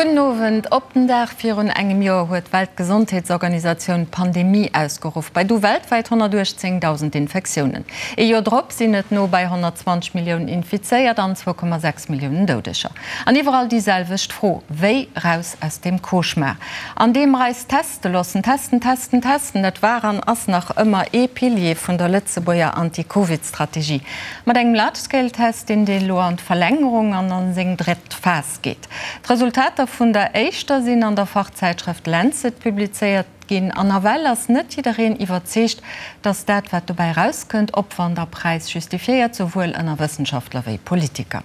Gudden Owend. Op den Dag virun engem Joer huet d'Weltgesondheetsorganisatioun d'Pandemie ausgeruff. Bei du weltwäit 118.000 Infektiounen. Ee Joer drop sinn et no bei 120 Milliounen Infizéiert an 2,6 Milliounen Doudeger. An iwwerall déi selwecht Fro, Wéi raus aus deem Cauchemar? An deem mer eis teste loossen. Testen, testen, testen, dat war an ass nach ëmmer ee Pilier vun der Lëtzebuerger Anti-Covid-Strategie. Mat engem Large-Scale-Test, deen deen elo an d'Verlängerung an an seng drëtt Phas geet. D'Resultater vun der éischter sinn an der Fachzäitschrëft Lancet publizéiert ginn an nawell ass net jiddereen iwwerzeegt, datt dat wat dobäi erauskënnt, Opwand a Präis justifiéiert, souwuel ënner Wëssenschaftler wéi Politiker.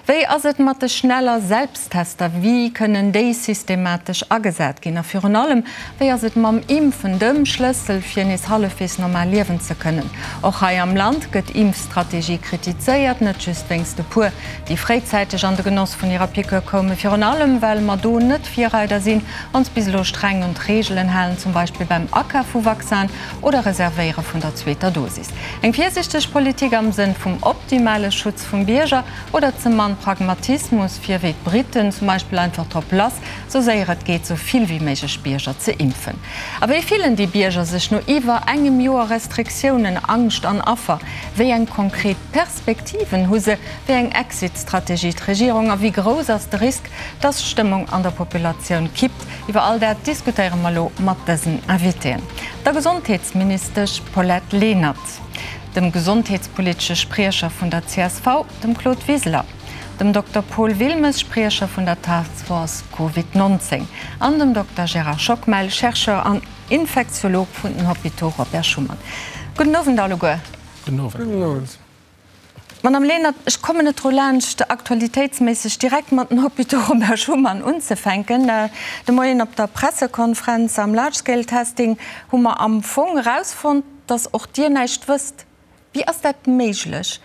Wéi ass et mat de schneller Selbsttester? Wéi kënnen déi systematesch agesat ginn? A virun allem, wéi ass et mam Impfen, dem Schlëssel fir nees hallefwegs normal liewen ze kënnen? Och hei am Land gëtt Impfstrategie kritizéiert, net just wéinst e puer déi fréizäiteg an de Genoss vun hirer Piqûre koumen, virun allem well mer do net Virreider sinn, ons bis elo streng un d'Reegelen halen, zum Beispill beim Akaf vu Vaccinen oder Reservéiere vun der zweeter Dosis. Eng virsichteg Politik am Sënn vum optimale Schutz vum Bierger oder ze mann Pragmatismus, fir wéi d'Briten zum Beispill einfach drop lass, sou séier et geet, sou vill wéi méiglech Bierger ze impfen? A wéi fillen déi Bierger sech no iwwer engem Joer Restriktiounen, Angscht an Affer? Wéi eng konkret Perspektiven hu se? Wéi eng Exit-Strategie d'Regierung a wéi grouss ass de Risk, dass d'Stëmmung an der Populatioun kippt? Iwwer all dat diskutéiere mer elo mat dësen Invitéen, der Gesondheetsministesch Paulette Lenert, dem gesondheetspolitesche Spriecher vun der csv, dem Claude Wiseler, dem Dokter Paul Wilmes, Spriecher vun der Task Force Covid 19 an dem Dokter Gérard Schockmel, Chercheur an Infektiolog vun den Hôpitaux Robert Schuman. Gudden Owend alleguer. Gudden Owend. Madame Lenert, ech kommen net dru laanscht, aktualitéitsméisseg direkt mat den Hôpitaux Robert Schuman unzefänken. De Moien op der Pressekonferenz am Large Scale Testing hu mer am Fong erausfonnt, dass och Dir näischt wësst. Wéi ass dat méiglech?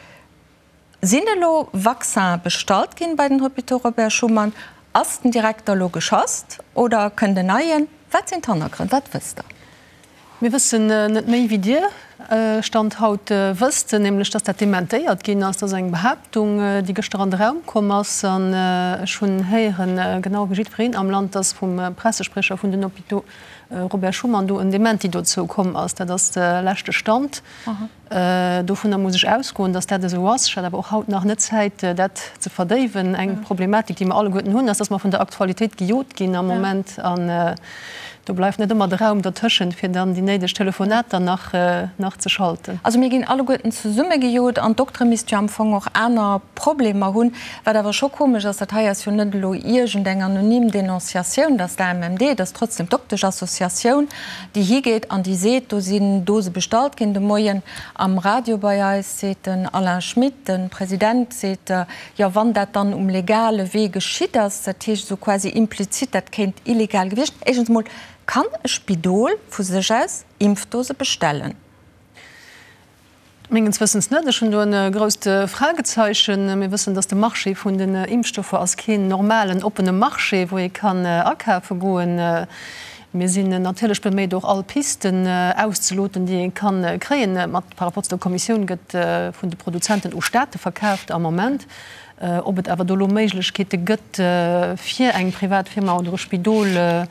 Sinn elo Vaccinen bestallt ginn bei den Hôpitaux Robert Schuman? Ass den Direkter elo geschasst oder kënnt en neien? Wat sinn d'Hannergrënn? Wat wësst Der? Mir wëssen net méi wéi Dir, Stand haut, wësst, nämlech dass dat dementéiert ginn ass. Dat ass eng Behaaptung, déi gëschter an de Raum komm ass. An ech hunn héieren, genau wéi jiddwereen am Land, dass vum Pressesprecher vun den Hôpitaux Robert Schuman do en Dementi dozou komm ass. Dat ass de leschte Stand. Dovunner muss ech ausgoen, dass dat esou ass. Ech hat awer och haut nach net Zäit, dat ze verdéiwen. Eng Problematik, déi mer alleguerten hunn, ass, dass mer vun der Aktualitéit gejot ginn am Moment. An do bleift net ëmmer de Raum dertëschent, fir dann déi néideg Telefonater nach, nach ze schalten. Also mir ginn alleguerten zesumme gejot an d'Doktere misste jo am Fong och aner Problemer hunn. Wat awer scho komesch ass, dat hei ass jo net elo iergendeng anonym Denonciatioun, dass d'AMMD, et ass trotzdem d'Doktesch-Associatioun, déi higeet an déi seet, do sinn Dose bestallt ginn. De Moien am Radio bei eis seet den Alain Schmit, de President, seet, jo wann dat dann um legale Wee geschitt ass, dat heescht esou quasi implizit, dat kéint illegal gewiescht. Éischtens emol, kann e Spidol vu sech aus Impfdose bestellen? Mengens Wëssens net. Ech hunn do e grousst Fragezeichen. Mir wëssen, datt de Marché vun den Impfstoffer ass keen normalen, oppene Marché, wou ee kann akafe goen. Mir sinn natierlech beméit, och all Pisten auszeloten, déi ee kann kréien. Mat par rapport zu der Kommissioun gëtt vun de Produzenten u Staate verkaaft am Moment. Ob et awer do elo Méiglechkeete gëtt, fir eng privat Firma oder e Spidol,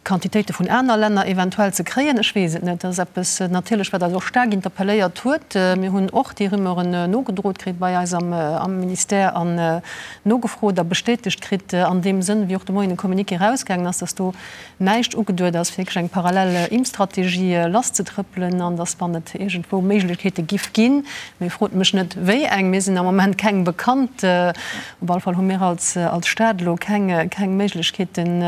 Quantitéite vun aner Länner eventuell ze kréien, ech weess et net. Dat ass eppes natierlech, wat eis och staark interpelléiert huet. Mir hunn och déi Rumeuren nogedrot kritt bei eis am Ministère an nogefrot a bestätegt kritt an deem Sënn, wéi och de Moien e Communiqué erausgaangen ass, dass do näischt ugeduet ass, fir wierklech eng parallel Impfstrategie lasszetrëppelen an dass, wann et iergendwou Méiglechkeete giff ginn, mee frot mech net wéi eng, mir sinn am Moment keng bekannt, Op alle Fall hu mir als Stad elo keng Méiglechkeeten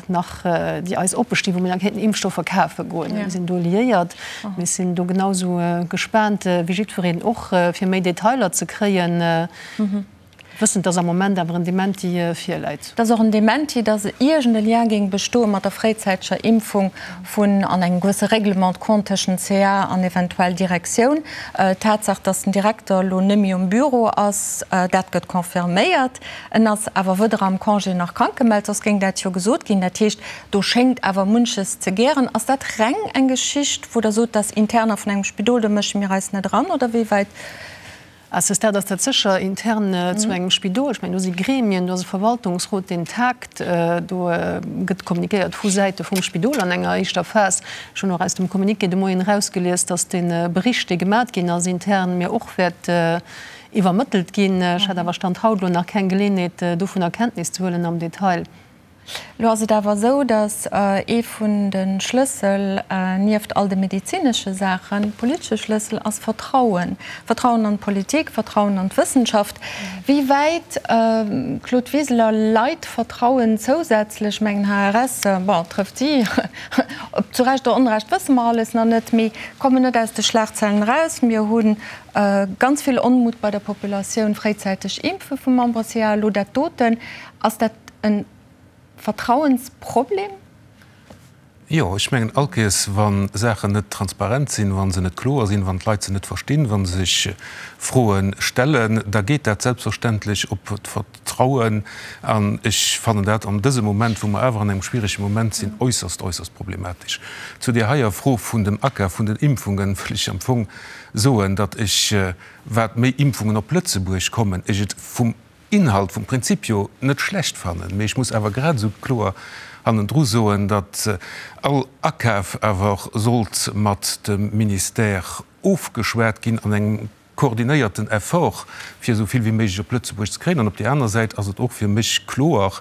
nach, déi eis oppe stinn, wou mir da kéinten Impfstoffer kafe goen. Mir sinn do liéiert. Mir sinn do genau esou gespaant wéi jiddwereen och, fir méi Detailer ze kréien, wëssend, dass am Moment awer en Dementi virläit. Et ass och en Dementi, dass iergend e Lien géing bestoe mat der fréizäiteger Impfung vun an engem gewësse Règlement de compte tëschent CA an eventuell Direktioun. D'Tatsaach, datt den Direkter elo net méi um Büro ass, dat gëtt confirméiert. En ass awer weder am Congé nach krank gemellt, soss géing dat jo gesot ginn. Dat heescht, do schéngt awer munches ze gären. Ass dat reng eng Geschicht, wou Der sot, dat ass Interner vun engem Spidol, do mësche mir eis net eran, oder wéi wäit? À ce stade ass dat sécher intern zu engem Spidol. Ech mengen, do si Gremien, do ass e Verwaltungsrot, deen tagt. Do gëtt kommunikéiert vu Säite vum Spidol an enger éischter Phas. Ech hunn och aus dem Communiqué de Moien erausgelies, datt dee Bericht, dee gemat ginn ass intern, mir och wäert iwwermëttelt ginn. Ech hat awer Stand haut elo nach keng Geleeënheet, dovunner Kenntnis ze huelen am Detail. Elo ass et awer esou, datt ee vun de Schlëssel, nieft all de medezinesche Saachen, politesche Schlëssel ass Vertrauen. Vertrauen an d'Politik, Vertrauen an d'Wëssenschaft. Wéi wäit, Claude Wiseler, leit Vertrauen zousätzlech, mengen HRS, bon, trëfft si, ob zu Recht oder Onrecht wësse mer alles nach net, mee kommen net aus de Schlagzeilen eraus. Mir hu ganz vill Onmut bei der Populatioun, fréizäiteg Impfe vum Membre-CA, elo dat doten. Ass dat e Vertrauensproblem? Jo, ech mengen, all Kéiers, wa Saachen net transparent sinn, wa se net kloer sinn, wann d'Leit se net verstinn, wa se sech Froe stellen, da geet dat selbstverständlech op d'Vertrauen. An ech fannen dat an dësem Moment, wou mer awer an engem schwierege Moment sinn, äusserst, äusserst problematesch. Zu där heier Fro vun dem Akaf vun den Impfungen wëll ech am Fong soen, datt ech, wat méi Impfungen op Lëtzebuerg kommen, ech et vum Inhalt, vum Prinzip jo net schlecht fannen, mee ech muss awer grad esou kloer hannendru soen, datt all Akaf awer sollt mat dem Ministère ofgeschwat ginn an engem koordinéierten Effort, fir esou vill wéi méiglech op Lëtzebuerg ze kréien. An op där aner Säit ass et och fir mech kloer,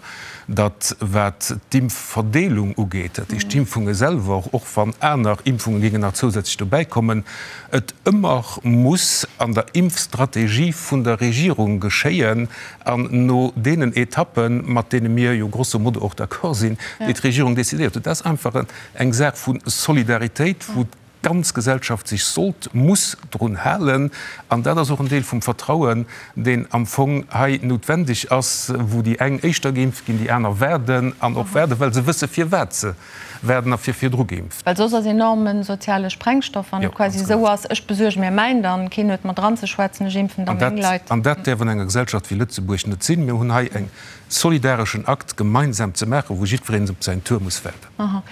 datt wat d'Impfverdeelung ugeet, dat heescht d'Impfunge selwer, och wann aner Impfunge géingen nach zousätzlech dobäikommen, et ëmmer muss an der Impfstrategie vun der Regierung geschéien an no deenen Etappen, mat deene mir jo grosso modo och d'accord sinn, déi d'Regierung decidéiert huet. Dat ass einfach eng Saach vu Solidaritéit, wou d'ganz Gesellschaft sech sollt, muss drun halen. An dat ass och en Deel vum Vertrauen, deen am Fong hei noutwendeg ass, wou déi eng éischter geimpft ginn, déi aner waarden an och waarden, well se wësse firwat se waarden a fir virdru geimpft. Well soss ass enorme soziale Sprengstoff, wann et quasi esou ass, ech besuerge mir mäin, dann keen huet mat dranzeschwätzen, ech impfen da meng Leit. An dat däerf an enger Gesellschaft wéi Lëtzebuerg net sinn. Mir hunn hei eng solidareschen Akt gemeinsam ze maachen, wou jiddwereen op säin Tour muss waarden.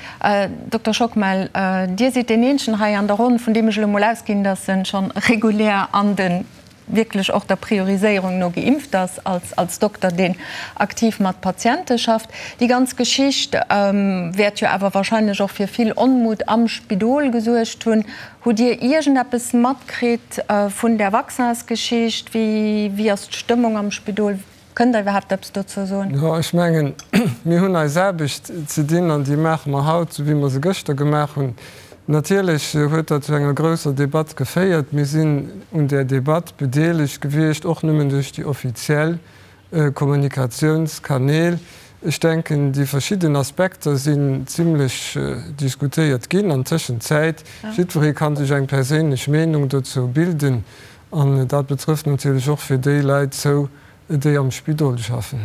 Dokter Schockmel, Dir sidd deen eenzegen hei an der Ronn, vun deem ech elo mol ausginn, datt en schonn regulär an de wierklech och der Prioriséierung no geimpft ass, als als Dokter, deen aktiv mat Patiente schafft. Déi ganz Geschicht wäert jo awer wahrscheinlech och fir vill Onmut am Spidol gesuergt hunn. Hutt Dir iergendeppes matkritt vun där Vaccinsgeschicht? Wéi wéi ass d'Stëmmung am Spidol? Kënnt Der iwwerhaapt eppes dozou soen? Jo, ech mengen, mir hunn eis Aarbecht ze dinn an déi maache mer haut, esou wéi mer se gëschter gemaach hunn. Natierlech huet dat zu enger grousser Debatt geféiert. Mir sinn un där Debatt bedeelegt gewiescht, och nëmmen duerch déi offiziell Kommunikatiounskanäl. Ech denken, déi verschidden Aspekter sinn zimlech diskutéiert ginn an Tëschenzäit. Jiddweree ka sech eng perséinlech Meenung dozou bilden. An dat betrëfft natierlech och fir déi Leit zou, déi am Spidol schaffen.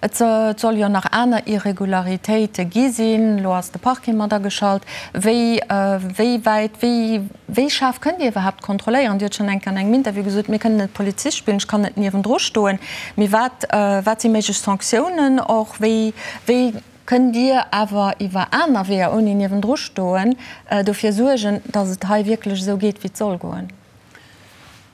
Et soll jo nach aner Irregularitéite gi sinn. Elo ass de Parquet mat ageschalt. Wéi, wéi wäit, wéi, wéi schaarf kënnt Dir iwwerhaapt kontrolléieren? Dir hutt schonn eng Kéier an engem Interview gesot, Mir kënnen net Polizist spillen, ech kann net niewendru stoen. Mee wat, wat si méiglech Sanktiounen och? Wéi, wéi kënnt Dir awer iwwer aner Weeër, ouni niewendru stoen, dofir suergen, datt et hei wierklech esou geet, wéi et soll goen?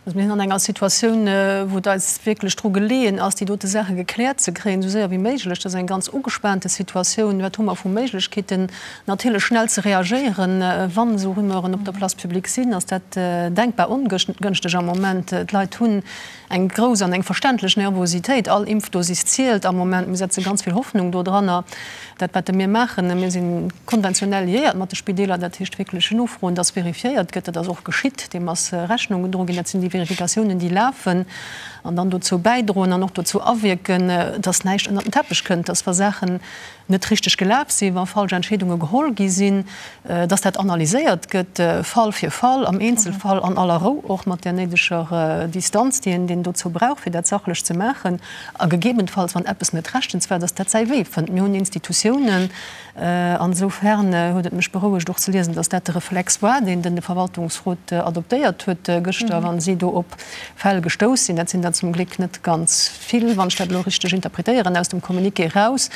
Also mir sinn an enger Situatioun, wou et eis wierklech dru geleeën ass, déi dote Saache gekläert ze kréien, esou séier wéi méiglech. Dat ass eng ganz ugespaante Situatioun. Wat hu mer vu Méiglechkeeten? Natierlech schnell ze reagéieren, wann esou Rumeuren op der Place publique sinn, ass dat denkbar ongënschteg am Moment. D'Leit hunn eng grouss an eng verständlech Nervositéit. All Impfdosis zielt am Moment. Mir setze ganz vill Hoffnung dodranner. Dat, wat mir maachen, mir si konventionell liéiert mat de Spideeler, dat heescht wierklech nofroen, dass vérifiéiert gëtt. Dat ass och geschitt, deem ass Rechnung gedroen ginn. Dat sinn déi Vérificatiounen, déi lafen an dann dozou bäidroen an och dozou awierken, dass näischt ënnert den Teppech kënnt, dass wa Saachen net richteg gelaf sinn, wa falsch Entscheedunge geholl gi sinn, dass dat analyséiert gëtt, Fall fir Fall, am Eenzelfall, an aller Rou, och mat där néideger Distanz, déi een dozou brauch, fir dat sachlech ze maachen. A gegebenfalls, wann eppes net rechtens war, dass dat säi Wee fënnt. Mir hunn Institutiounen. An esoufern huet et mech berouegt och ze liesen, dass dat de Reflex war, deen den de Verwaltungsrot adoptéiert huet gëschter, wa si do op Fäll gestouss sinn. Dat sinn der zum Gléck net ganz vill, wann ech dat elo richteg interpretéieren aus dem Communiqué eraus.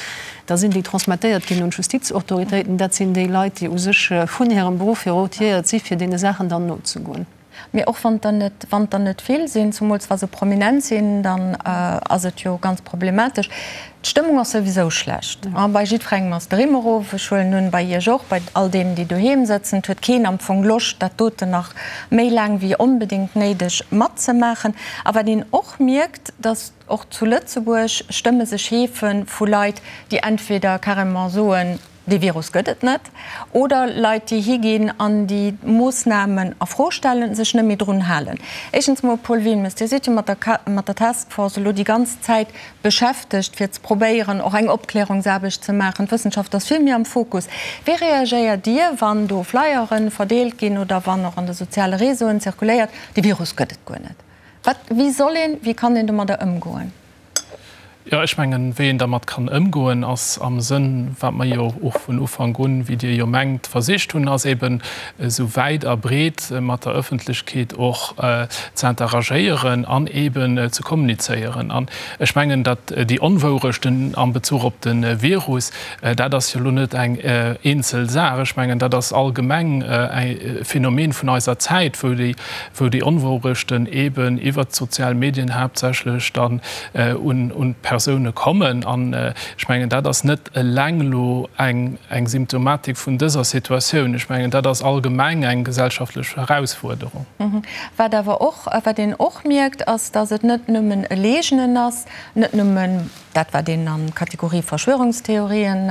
Da sinn déi transmettéiert ginn un d'Justizautoritéiten. Dat sinn déi Leit, déi u sech vun hirem Beruff hier rotiéiert si fir deene Saachen dann nozegoen. Mee och wann der net, wann der net vill sinn, zumools wa se prominent sinn, dann ass et jo ganz problematesch. D'Stëmmung ass souwisou schlecht. Bei jiddwerengem ass de Rimm erof. Ech huelen un, bei Iech och, bei all deenen, déi doheem sëtzen. Et huet keen am Fong Loscht, dat doten nach méi laang wéi onbedéngt néideg matzemaachen. A wat een och mierkt, datt och zu Lëtzebuerg Stëmme sech heefe vu Leit, déi entweder carrément soen, Dee Virus gëtt et net. Oder Leit, déi higinn an déi Moossnamen a Fro stellen, sech net méi drun halen. Éischtens mol, Paul Wilmes, Dir sidd jo mat der mat der Task Force elo déi ganz Zäit beschäftegt, fir ze probéieren, och eng Opklärungsaarbecht ze maachen. D'Wëssenschaft ass vill méi am Fokus. Wéi reagéiert Dir, wann do Flyere verdeelt ginn oder wann och an de soziale Réseauen zirkuléiert, dee Virus gëtt et guer net? Wat, wéi soll een, wéi kann een domadder ëmgoen? Jo, ech mengen, wéi een dermat kann ëmgoen, ass am Sënn, wat mer jo och vun Ufank un, wéi Dir jo mengt, versicht hunn, ass eben esou wäit a breet mat der Ëffentlechkeet och ze interagéieren an eben ze kommunizéieren. An ech mengen, datt déi Onwourechten am Bezuch op de Virus, dat ass jo elo net eng eenzel Saach. Ech mengen, dat ass allgemeng e Phänomen vun eiser Zäit, wou déi wou déi Onwourechten eben iwwert d'sozial Medien haaptsächlech dann un d'Persoune kommen. An ech mengen, dat ass net eleng elo eng Symptomatik vun dëser Situatioun. Ech mengen, dat ass allgemeng eng gesellschaftlech Erausfuerderung. Wat awer och, wat een och mierkt, ass, datt et net nëmmen e Leegnen ass, net nëmmen, dat wat een an d'Kategorie Verschwörungstheorien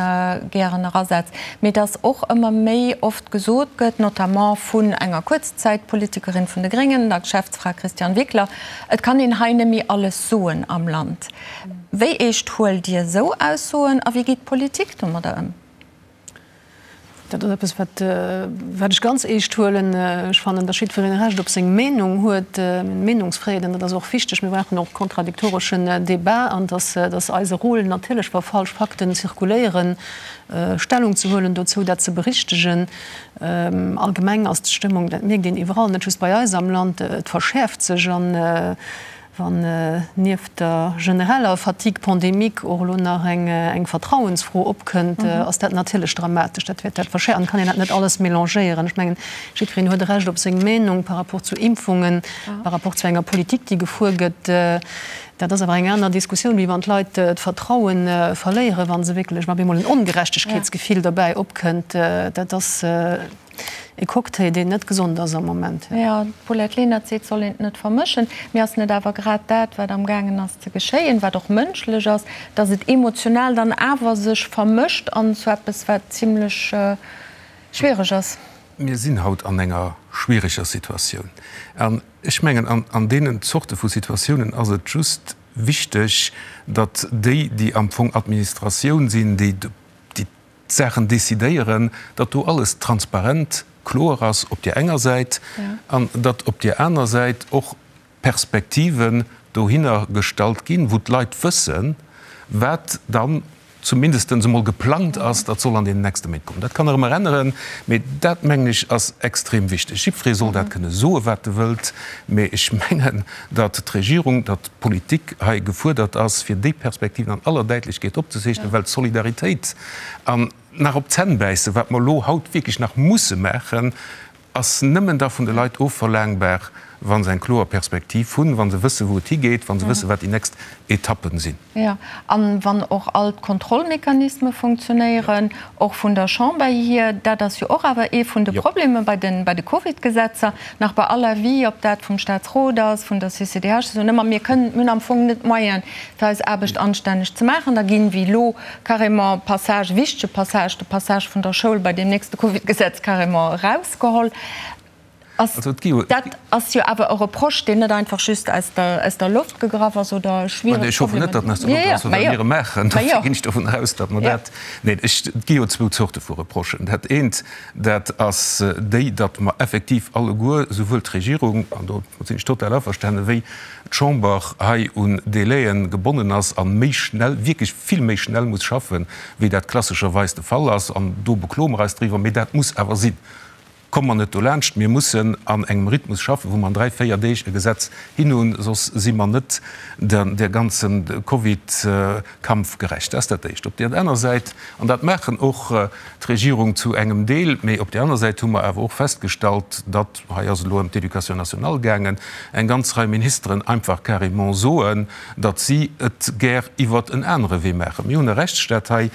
gären erasetzt, mee dass och ëmmer méi oft gesot gëtt, notamment vun enger Kuerzzäitpolitikerin vun de Gréngen, der Geschäftsfra Christiane Wickler, et kann een hei net méi alles soen am Land. Wéi eescht huelt Dir esou Aussoen a wéi geet d'Politik domadder ëm? Dat ass eppes, wat, wat ech ganz eescht huelen. Ech fannen, datt jiddwereen e Recht op seng Meenung huet. Meenungsfräiheet, an dat ass och wichteg. Mir brauchen och kontradiktoreschen Debat an datt, datt eise Rôle natierlech, wa falsch Fakten zirkuléieren, Stellung ze huelen dozou, dat ze berichtegen. Allgemeng ass d'Stëmmung, dat mierkt een iwwerall, net just bei eis am Land, et verschäerft sech an, Wann nieft der genereller Fatigue pandémique och elo nach eng Vertrauensfro opkënnt, ass dat natierlech dramatesch. Dat wäert dat verschäerfen. An et kann een dat net alles mélangéieren. Ech mengen, jiddwereen huet e Recht op seng Meenung par rapport zu Impfungen, par rapport zu enger Politik, déi gefuer gëtt. Dat ass awer eng aner Diskussioun, wéi wann d'Leit d'Vertraue verléieren, wa se wierklech, wa op eemol en Ongerechtegkeetsgefill derbäi opkënnt. Dat ass. E Cocktail, deen net gesond ass am Moment. Jo, d'Paulette Lenert seet, soll een et net vermëschen. Mee ass net awer grad dat, wat amgaangen ass ze geschéien, wat och mënschlech ass, datt et emotional dann awer sech vermëscht an zu eppes, wat zimlech schwiereg ass? Mir sinn haut an enger schwiereger Situatioun. An ech mengen, an deenen Zorte vu Situatiounen ass et just wichteg, datt déi, déi am Fong Administratioun sinn, déi d'Saachen decidéieren, datt do alles transparent, kloer ass op där enger Säit an datt op där aner Säit och Perspektiven dohinner gestallt ginn, wou d'Leit wëssen, wat dann zumindestens emol geplangt ass, datt soll an deenen nächste Méint kommen. Dat kann nach ëmmer änneren, mee dat, mengen ech, ass extrem wichteg. Jiddweree soll dat kënne soen, wat e wëllt, mee ech mengen, datt d'Regierung, datt d'Politik hei gefuerdert ass, fir déi Perspektiven an aller Däitlechkeet opzezeechnen, well d'Solidaritéit an nach op d'Zänn bäissen, wat mer elo haut wierklech nach musse maachen, ass nëmmen da vun de Leit ofverlaangbar, wa se eng kloer Perspektiv hunn, wa se wëssen, wou et higeet, wa se wëssen, wat déi nächst Etappen sinn. Jo, a wann och all d'Kontrollmechanisme funktionéieren, och vun der Chamber hier. Dat ass jo och awer ee vun de Problemer bei de, bei de Covidgesetzer, nach bei aller Avis, ob dat vum Statsrot ass, vun der CCDH, se soen ëmmer, mir kënnen, mir hunn am Fong net d'Moyene fir eis Aarbecht anstänneg ze maachen. Da ginn, wéi elo, carrément Passage, wichtege Passage, de Passage vun der Schoul bei deem nächste Covidgesetz carrément erausgeholl. Ass, dat ass jo awer e Reproche, deen net einfach just aus der, aus der Loft gegraff ass oder schwiereg Ech hoffen net, datt en aus der Loft ass, well mir e maachen. Dofir ginn ech dovun aus, datt mer dat, neen, ech, et gi jo zwou Zorte vu Reprochen. Dat eent, dat ass déi, datt mer effektiv alleguer, souwuel d'Regierung, an do sinn ech total averstanen, wéi d'Chamber hei un Délaië gebonnen ass a méi schnell, wierklech vill méi schnell muss schaffen, wéi dat klassescherweis de Fall ass. An do bekloe mer eis driwwer, mee dat muss awer sinn. Komme mer net dolaanscht. Mir mussen an engem Rhythmus schaffen, wou mer an dräi, véier Deeg e Gesetz hin hunn, soss si mer net der ganzen Covid-Kampf gerecht. Dat ass dat Éischt. Op där aner Säit, an dat maachen och d'Regierung zu engem Deel, mee op där aner Säit hu mer awer och festgestallt, datt, hei ass et elo ëm d'Éducation nationale gaangen, eng ganz Rei Ministeren einfach carrément soen, datt si et gär iwwert en anere Wee maachen. Mir hunn e Rechtsstaat hei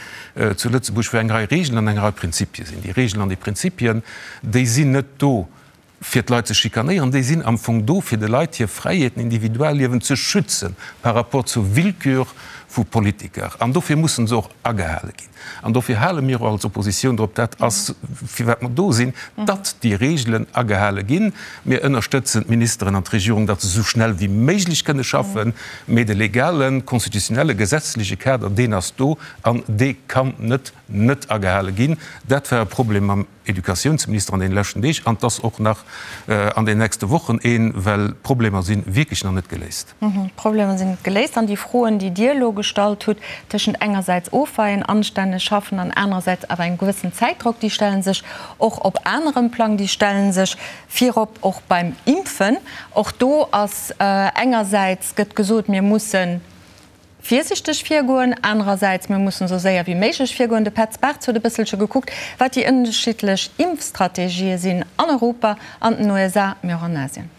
zu Lëtzebuerg, wou eng Rei Regeln an eng Rei Prinzipie sinn. Déi Regeln an déi Prinzipien, déi sinn net do, fir d'Leit ze schikanéieren, déi sinn am Fong do, fir de Leit hir Fräiheeten, Individualliewen ze schützen par rapport zur Willkür vu Politiker. An dofir mussen se och agehale ginn. An dofir hale mir och als Oppositioun drop, dat ass firwat mer do sinn, datt déi Regelen agehale ginn. Mir ënnerstëtzen d'Ministeren an d'Regierung, datt se esou schnell wéi méiglech kënne schaffen, mee de legalen, constitutionnelle, gesetzleche Kader, deen ass do an dee kann net net agehale ginn. Dat war e Problem mam Educatiounsminister an deene leschten Deeg an 't ass och nach an den nächste Wochen een, well d'Problemer si wierklech nach net geléist. D'Problemer sinn net geléist an déi Froen, déi Dir elo gestallt hutt, tëschent engersäits ofweien, anstänneg schaffen an anerersäits awer engem gewëssen Zäitdrock, déi stelle sech och op anerem Plang, déi stelle sech virop och beim Impfen. Och do ass engersäits gëtt gesot, mir mussen virsichteg virgoen, anerersäits, mir mussen esou séier wéi méiglech virgoen. De Petz Bartz huet e bësselche gekuckt, wat déi ënnerschiddlech Impfstrategië sinn an Europa, an den USA, mee och an Asien.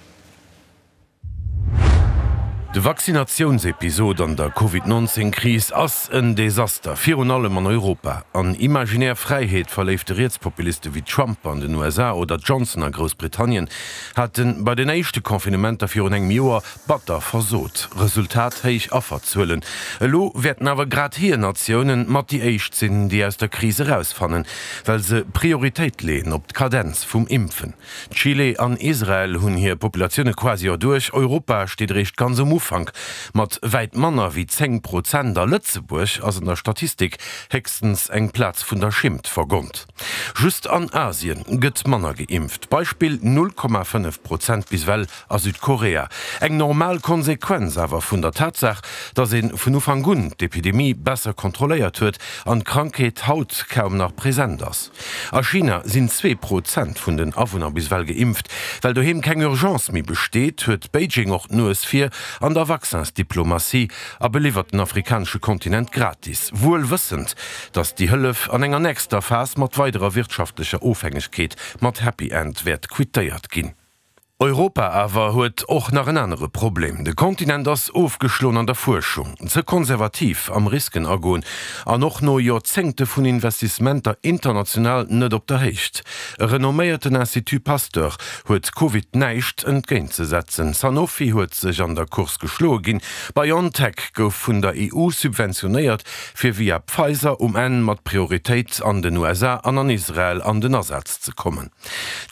De Vaccinatiounsepisod an der Covid 19 Kris ass en Desaster, virun allem an Europa. An imaginär Fräiheet verléifte Rietspopuliste wéi Trump an den USA oder Johnson a Groussbritannien hate bei den éischte Confinementer virun engem Joer Batter versot. Resultat, héich Afferzuelen. Elo wäerten awer grad hir Natiounen mat déi éischt sinn, déi aus der Kris erausfannen, well se Prioritéit leeën op d'Kadenz vum Impfen. Chile an Israel hunn hir Populatioune quasi erduerch, Europa steet eréischt ganz um Ufank mat wäit manner wéi 10 Prozent a Lëtzebuerg ass an der Statistik héchstens eng Plaz vun der Schimmt vergonnt. Just an Asien gëtt manner geimpft, Beispill 0,5 Prozent bis ewell a Südkorea. Eng normal Konsequenz awer vun der Tatsaach, datt ee vun Ufank un d'Epidemie besser kontrolléiert huet an d'Krankheet haut kaum nach present ass. A China sinn 2% vun den Awunner bis ewell geimpft. Well doheem keng Urgence méi besteet, huet Beijing och d'Nues vir an der Vaccinsdiplomatie a beliwwert den afrikanesche Kontinent gratis, wuel wëssend, datt déi Hëllef an enger nächster Phas mat weiderer wirtschaftlecher Ofhängegkeet mat Happy End wäert quittéiert ginn. Europa awer huet och nach en anere Problem, De Kontinent ass ofgeschloen an der Fuerschung, ze konservativ am Risken agoen an och no Joerzéngte vun Investissementer international net op der Héicht. E renomméierten Institut Pasteur huet Covid näischt entgéintzesetzen, Sanofi huet sech an der Course geschloe ginn, BioNTech gouf vun der EU subventionéiert, fir via Pfizer um Enn mat Prioritéit an den USA an an Israel an den Asaz ze kommen.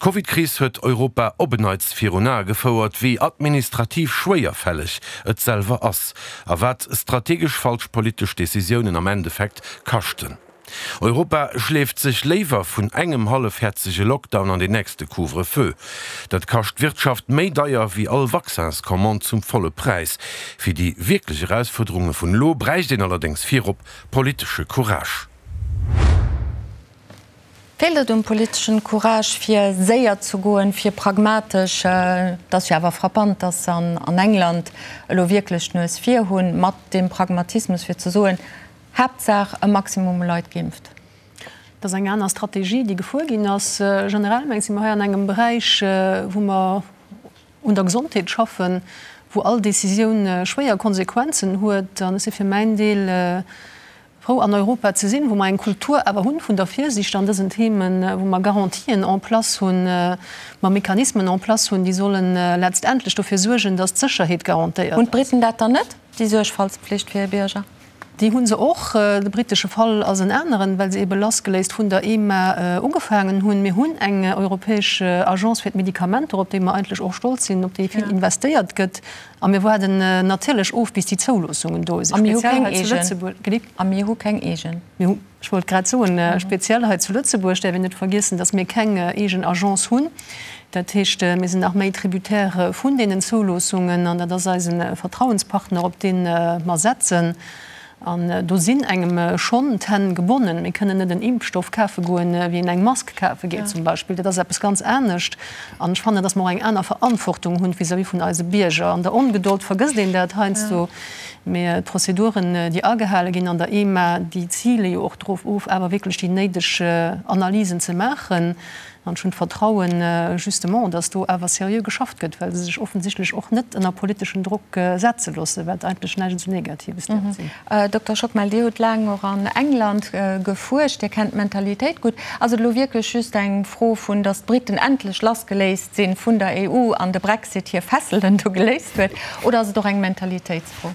D'Covidkris huet Europa op en Neits virun Ae gefouert, wéi administrativ schwéierfälleg et selwer ass a wat strategesch falsch politesch Decisiounen am Endeffekt kaschten. Europa schleeft sech léiwer vun engem hallefhäerzege Lockdown an den nächste Couvre-feu. Dat kascht d'Wirtschaft méi deier wéi all Vaccinscommande zum volle Präis. Fir déi wierklech Erausfuerderunge vun elo bräicht een allerdéngs virop politesche Courage. Feelt et um politeschen Courage fir séier ze goen, fir pragmatesch, et ass jo awer frappant, datt se an England elo wierklech d'Nues vir hunn, mat deem Pragmatismus fir ze soen, Haaptsaach e Maximum u Leit geimpft? Et ass eng aner Strategie, déi gefuer ginn ass. Generell mengen ech, si mer hei an engem Beräich, wou mer un der Gesondheet schaffen, wou all Décisioun schwéier Konsequenzen huet. An ech si fir mäin Deel Frou an Europa ze sinn, wou mer eng Kultur awer hunn vun der Virsiicht an dësen Themen, wou mer Garantien en place hunn, mer Mechanismen en place hunn, déi sollen letztendlech dofir suergen, dass d'Sécherheet garantéiert Hunn ass. d'Briten dat dann net, déi Suergfaltspflicht fir hir Bierger? Déi hu se och. De britesche Fall ass en aneren, well se ebe lassgeléist vun der EMA ugefaangen hunn. Mir hunn eng europäesch Agence fir d'Medikamenter, op déi mer eigentlech och stolz sinn, op déi vill investéiert gëtt. A mir waarden natierlech of, bis déi Zouloossungen do sinn. A mir hu keng eegen. A mir hu keng eegen. Mir hu, ech wollt grad soen, speziell hei zu Lëtzebuerg däerf een net vergiessen, datt mir keng eegen Agence hunn. Dat heescht, mir sinn nach méi Tributaire vun deenen Zouloossungen an dat ass eise Vertrauenspartner, op dee mer setzen. An do sinn engem schonn d'Hänn gebonnen. Mir kënnen net en Impfstoff kafe goen, wéi een eng Mask kafe geet zum Beispill. Dat ass eppes ganz anescht. An ech fannen, datt mer och eng aner Verantwortung hunn vis-à-vis vun eise Bierger. An der Ongedold vergësst een dat heiansdo. Mee d'Prozeduren, déi agehale ginn an der EMA, déi zile jo och drop of, awer wierklech déi néideg Analysen ze maachen. An ech hunn d'Vertrauen justement, datt do awer seriö geschafft gëtt, well se sech offensichtlech och net ënner politeschen Drock setze loossen, wat eigentlech näischt esou Negatives däerf sinn. Dokter Schockmel, Dir hutt laang och an England gefuerscht, Dir kennt d'Mentalitéit gutt. Ass et elo wierklech just eng Fro vun, datt d'Briten endlech lassgeléist si vun der EU an de Brexit hir Fesselen do geléist huet, oder ass et och eng Mentalitéitsfro?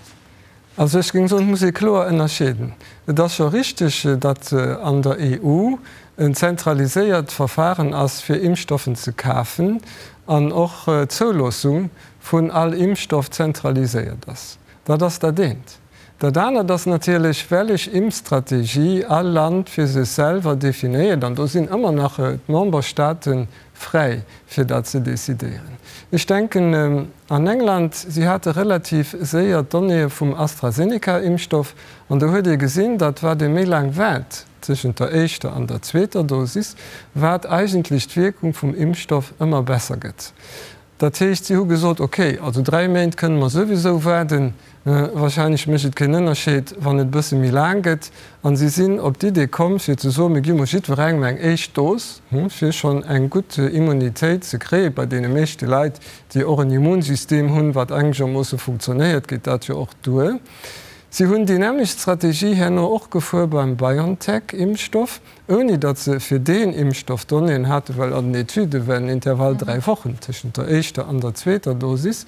Also ech géing soen, et muss ee kloer ënnerscheeden. Et ass scho richteg, datt an der EU en zentraliséiert Verfahren ass fir Impfstoffen ze kafen an och d'Zouloossung vun all Impfstoff zentraliséiert ass. Dat ass dat eent. Dat anert ass natierlech, wellech Impfstrategie all Land fir sech selwer definéiert, an do sinn ëmmer nach d'Memberstaaten fräi fir dat ze decidéieren. Ech denken an England, si hate relativ séier d'Donnéeë vum AstraZeneca-Impfstoff an do huet ee gesinn, datt wat ee méi laang waart tëschent der éischter an der zweeter Dosis, wat eigentlech d'Wierkung vum Impfstoff ëmmer besser gëtt. Dat heescht, si hu gesot, ok, also 3 Méint kënne mer souwisou waarden, wahrscheinlech mécht et keen Ënnerscheed, wann et e bësse méi laang gëtt. An si sinn op d'Idee komm, fir ze soen, mir gi mol jiddwerengem eng éischt Dos, fir schonn eng gutt Immunitéit ze kréien. Bei deene meeschte Leit, déi och en Immunsystem hunn, wat engegermoosse funktionéiert, geet dat jo och duer. Si hunn déi nämmlecht Strategie herno och gefuer beim BioNTech-Impfstoff. ouni datt se fir deen Impfstoff Donnéeën haten, well an den Etüde war den Intervall 3 Wochen tëschent der éischter an der zweeter Dosis.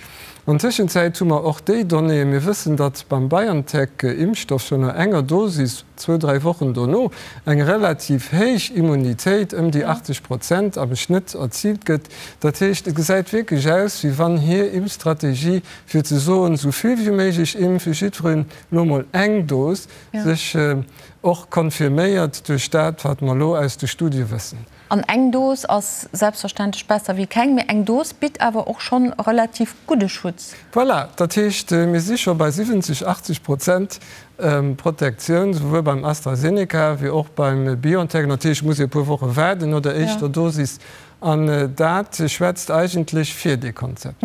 An Tëschenzäit hu mer och déi Donnéeën. Mir wëssen, datt beim BioNTech-Impfstoff schonn no enger Dosis, zwou, dräi Wochen dono, eng relativ héich Immunitéit, ëm déi 80 Prozent am Schnëtt, erziilt gëtt. Dat heescht, et gesäit wierklech aus, wéi wann hir Impfstrategie, fir ze soen, esou vill wéi méiglech impfen, jiddwereen elo mol eng Dos, sech Och confirméiert duerch dat, wat mer elo aus de Studie wëssen. An eng Dos ass selbstverständlech besser wéi keng, mee eng Dos bitt awer och schonn relativ gudde Schutz. Voilà, dat heescht, mir si scho bei 70, 80 Prozent Protektioun, souwuel beim AstraZeneca wéi och beim BioNTech. Natierlech muss ee e puer Woche waarden no der éischter Dosis. An dat schwätzt eigentlech fir dee Konzept.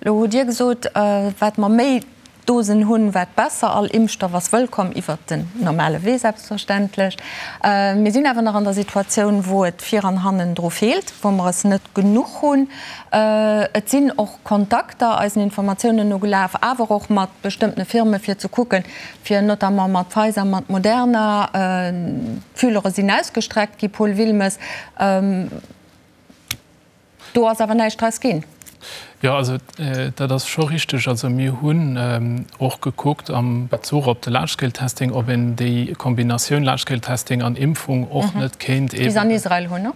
Elo hutt Dir gesot, wat mer méi Dosen hunn, wat besser. All Impfstoff ass wëllkomm, iwwert den normale Wee selbstverständlech. Mir sinn awer nach an der Situatioun, wou et vir an hannen dru feelt, wou mer es net genuch hunn. Et sinn och Kontakter eisen Informatiounen no gelaf, awer och mat bestëmmtene Firme fir ze kucken, fir notamment mat Pfizer, mat Moderna. D'Fülere sinn ausgestreckt gi, Paul Wilmes. Do ass awer näischt draus ginn. Jo, also dat ass scho richteg. Also mir hunn och gekuckt am Bezuch op de Large-Scale-Testing, ob een déi Kombinatioun Large-Scale-Testing an Impfung och net kéint eeben. Wéi se an Israel hunn, ne?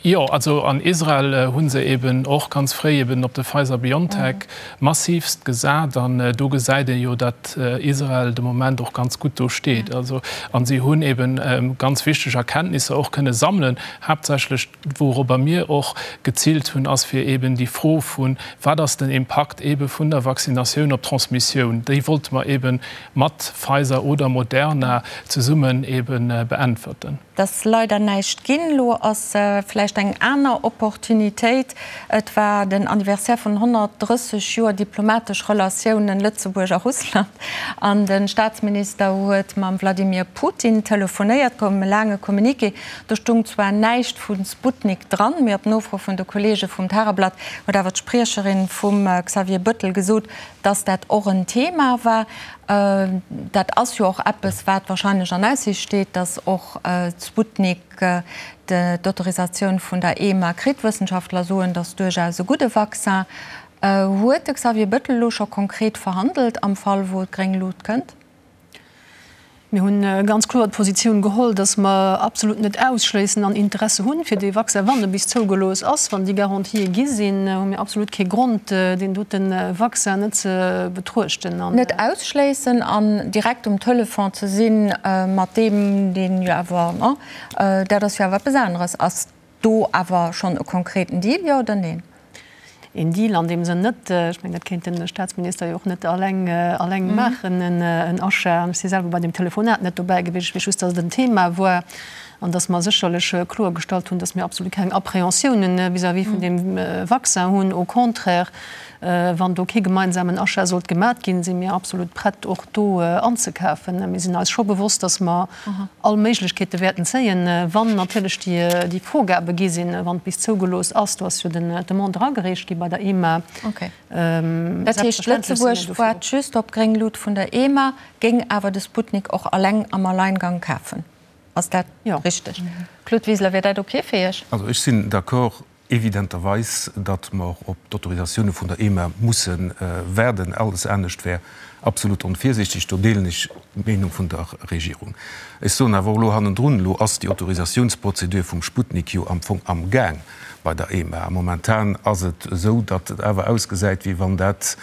Jo, also an Israel hu se eeben och ganz fréi eeben op de Pfizer-BioNTech massivst gesat. An do gesäit ee jo, datt Israel de Moment och ganz gutt do steet. Also, a si hunn eeben ganz wichteg Erkenntnisser och kënne sammelen, haaptsächlech, Wourobber mir och geziilt hunn, ass fir eeben déi Fro vu wat ass den Impakt eebe vun der Vaccinatioun op d'Transmissioun, déi wollte mer eebe mat Pfizer oder Moderna zesummen eebe beäntwerten. Et ass leider näischt ginn. Elo ass vläicht eng aner Opportunitéit. Et war den Anniversaire vun 130 Joer diplomatesch Relatiounen Lëtzebuerg a Russland an de Staatsminister huet mam Wladimir Putin telefonéiert. Koum e laange Communiqué. Do stung zwar näischt vu Sputnik dran, mee op Nofro vun de Kolleege vum Tageblatt huet awer d'Spriecherin vum Xavier Bëttel gesot, dass dat och en Thema war. Dat ass jo och eppes, wat wahrscheinlech an Aussiicht steet, dass och d'Sputnik d'Autorisatioun vun der EMA kritt. Wëssenschaftler soen, dass duerchaus e gudde Vaccin. Huet de Xavier Bëttel elo scho konkret verhandelt am Fall, wou d'gréng Lut kënnt? Mir hunn ganz kloer d'Positioun geholl, dass mer absolut net ausschléissen an Interesse hunn, fir dee Vaccin, wann e bis zougelooss ass, wann déi Garantië gi sinn, hu mir absolut kee Grond, deen dote Vaccin net ze betruechten. Net ausschléissen an direkt um Telefon ze sinn mat deem, deen jo awer, dat ass jo awer eppes aneres. Ass do awer schonn e konkreten Deal, jo oder neen? Een Deal an deem Sënn net. Ech mengen, dat kéint de Staatsminister jo och net alleng, alleng maachen, en Achat. An ech si selwer bei deem Telefonat net dobäi gewiescht. Ech weess just, datt et en Thema war an datt mer sécherlech kloergestallt hunn, datt mir absolut keng Appréhensiounen vis-à-vis vun deem Vaccin hunn. Au contraire, wann do kee gemeinsamen Achat sollt gemat ginn, si mir absolut prett, och do anzekafen. Mir sinn eis scho bewosst, datt mer all Méiglechkeete wäerten zéien, wann natierlech déi Vorgabe gi sinn, wann et bis zougelooss ass. Do ass jo d'Demande eragereecht gi bei der EMA. Okay. Dat heescht, Lëtzebuerg waart just op gréng Lut vun der EMA, géing awer de Sputnik och alleng am Alleingang kafen. Ass dat richteg? Claude Wiseler, wier dat ok fir Iech? Also ech sinn d'accord, Evidenterweis, datt mer op d'Autorisatioune vun der EMA musse waarden. Alles anescht wär absolut onvirsiichteg. Do deelen ech d'Meenung vun der Regierung. Ech soen awer och elo hannendrun, Elo ass déi Autorisatiounsprozedur vum Sputnik jo am Fong amgaang bei der EMA. A momentan ass et esou, datt et awer ausgesäit, wéi wann dat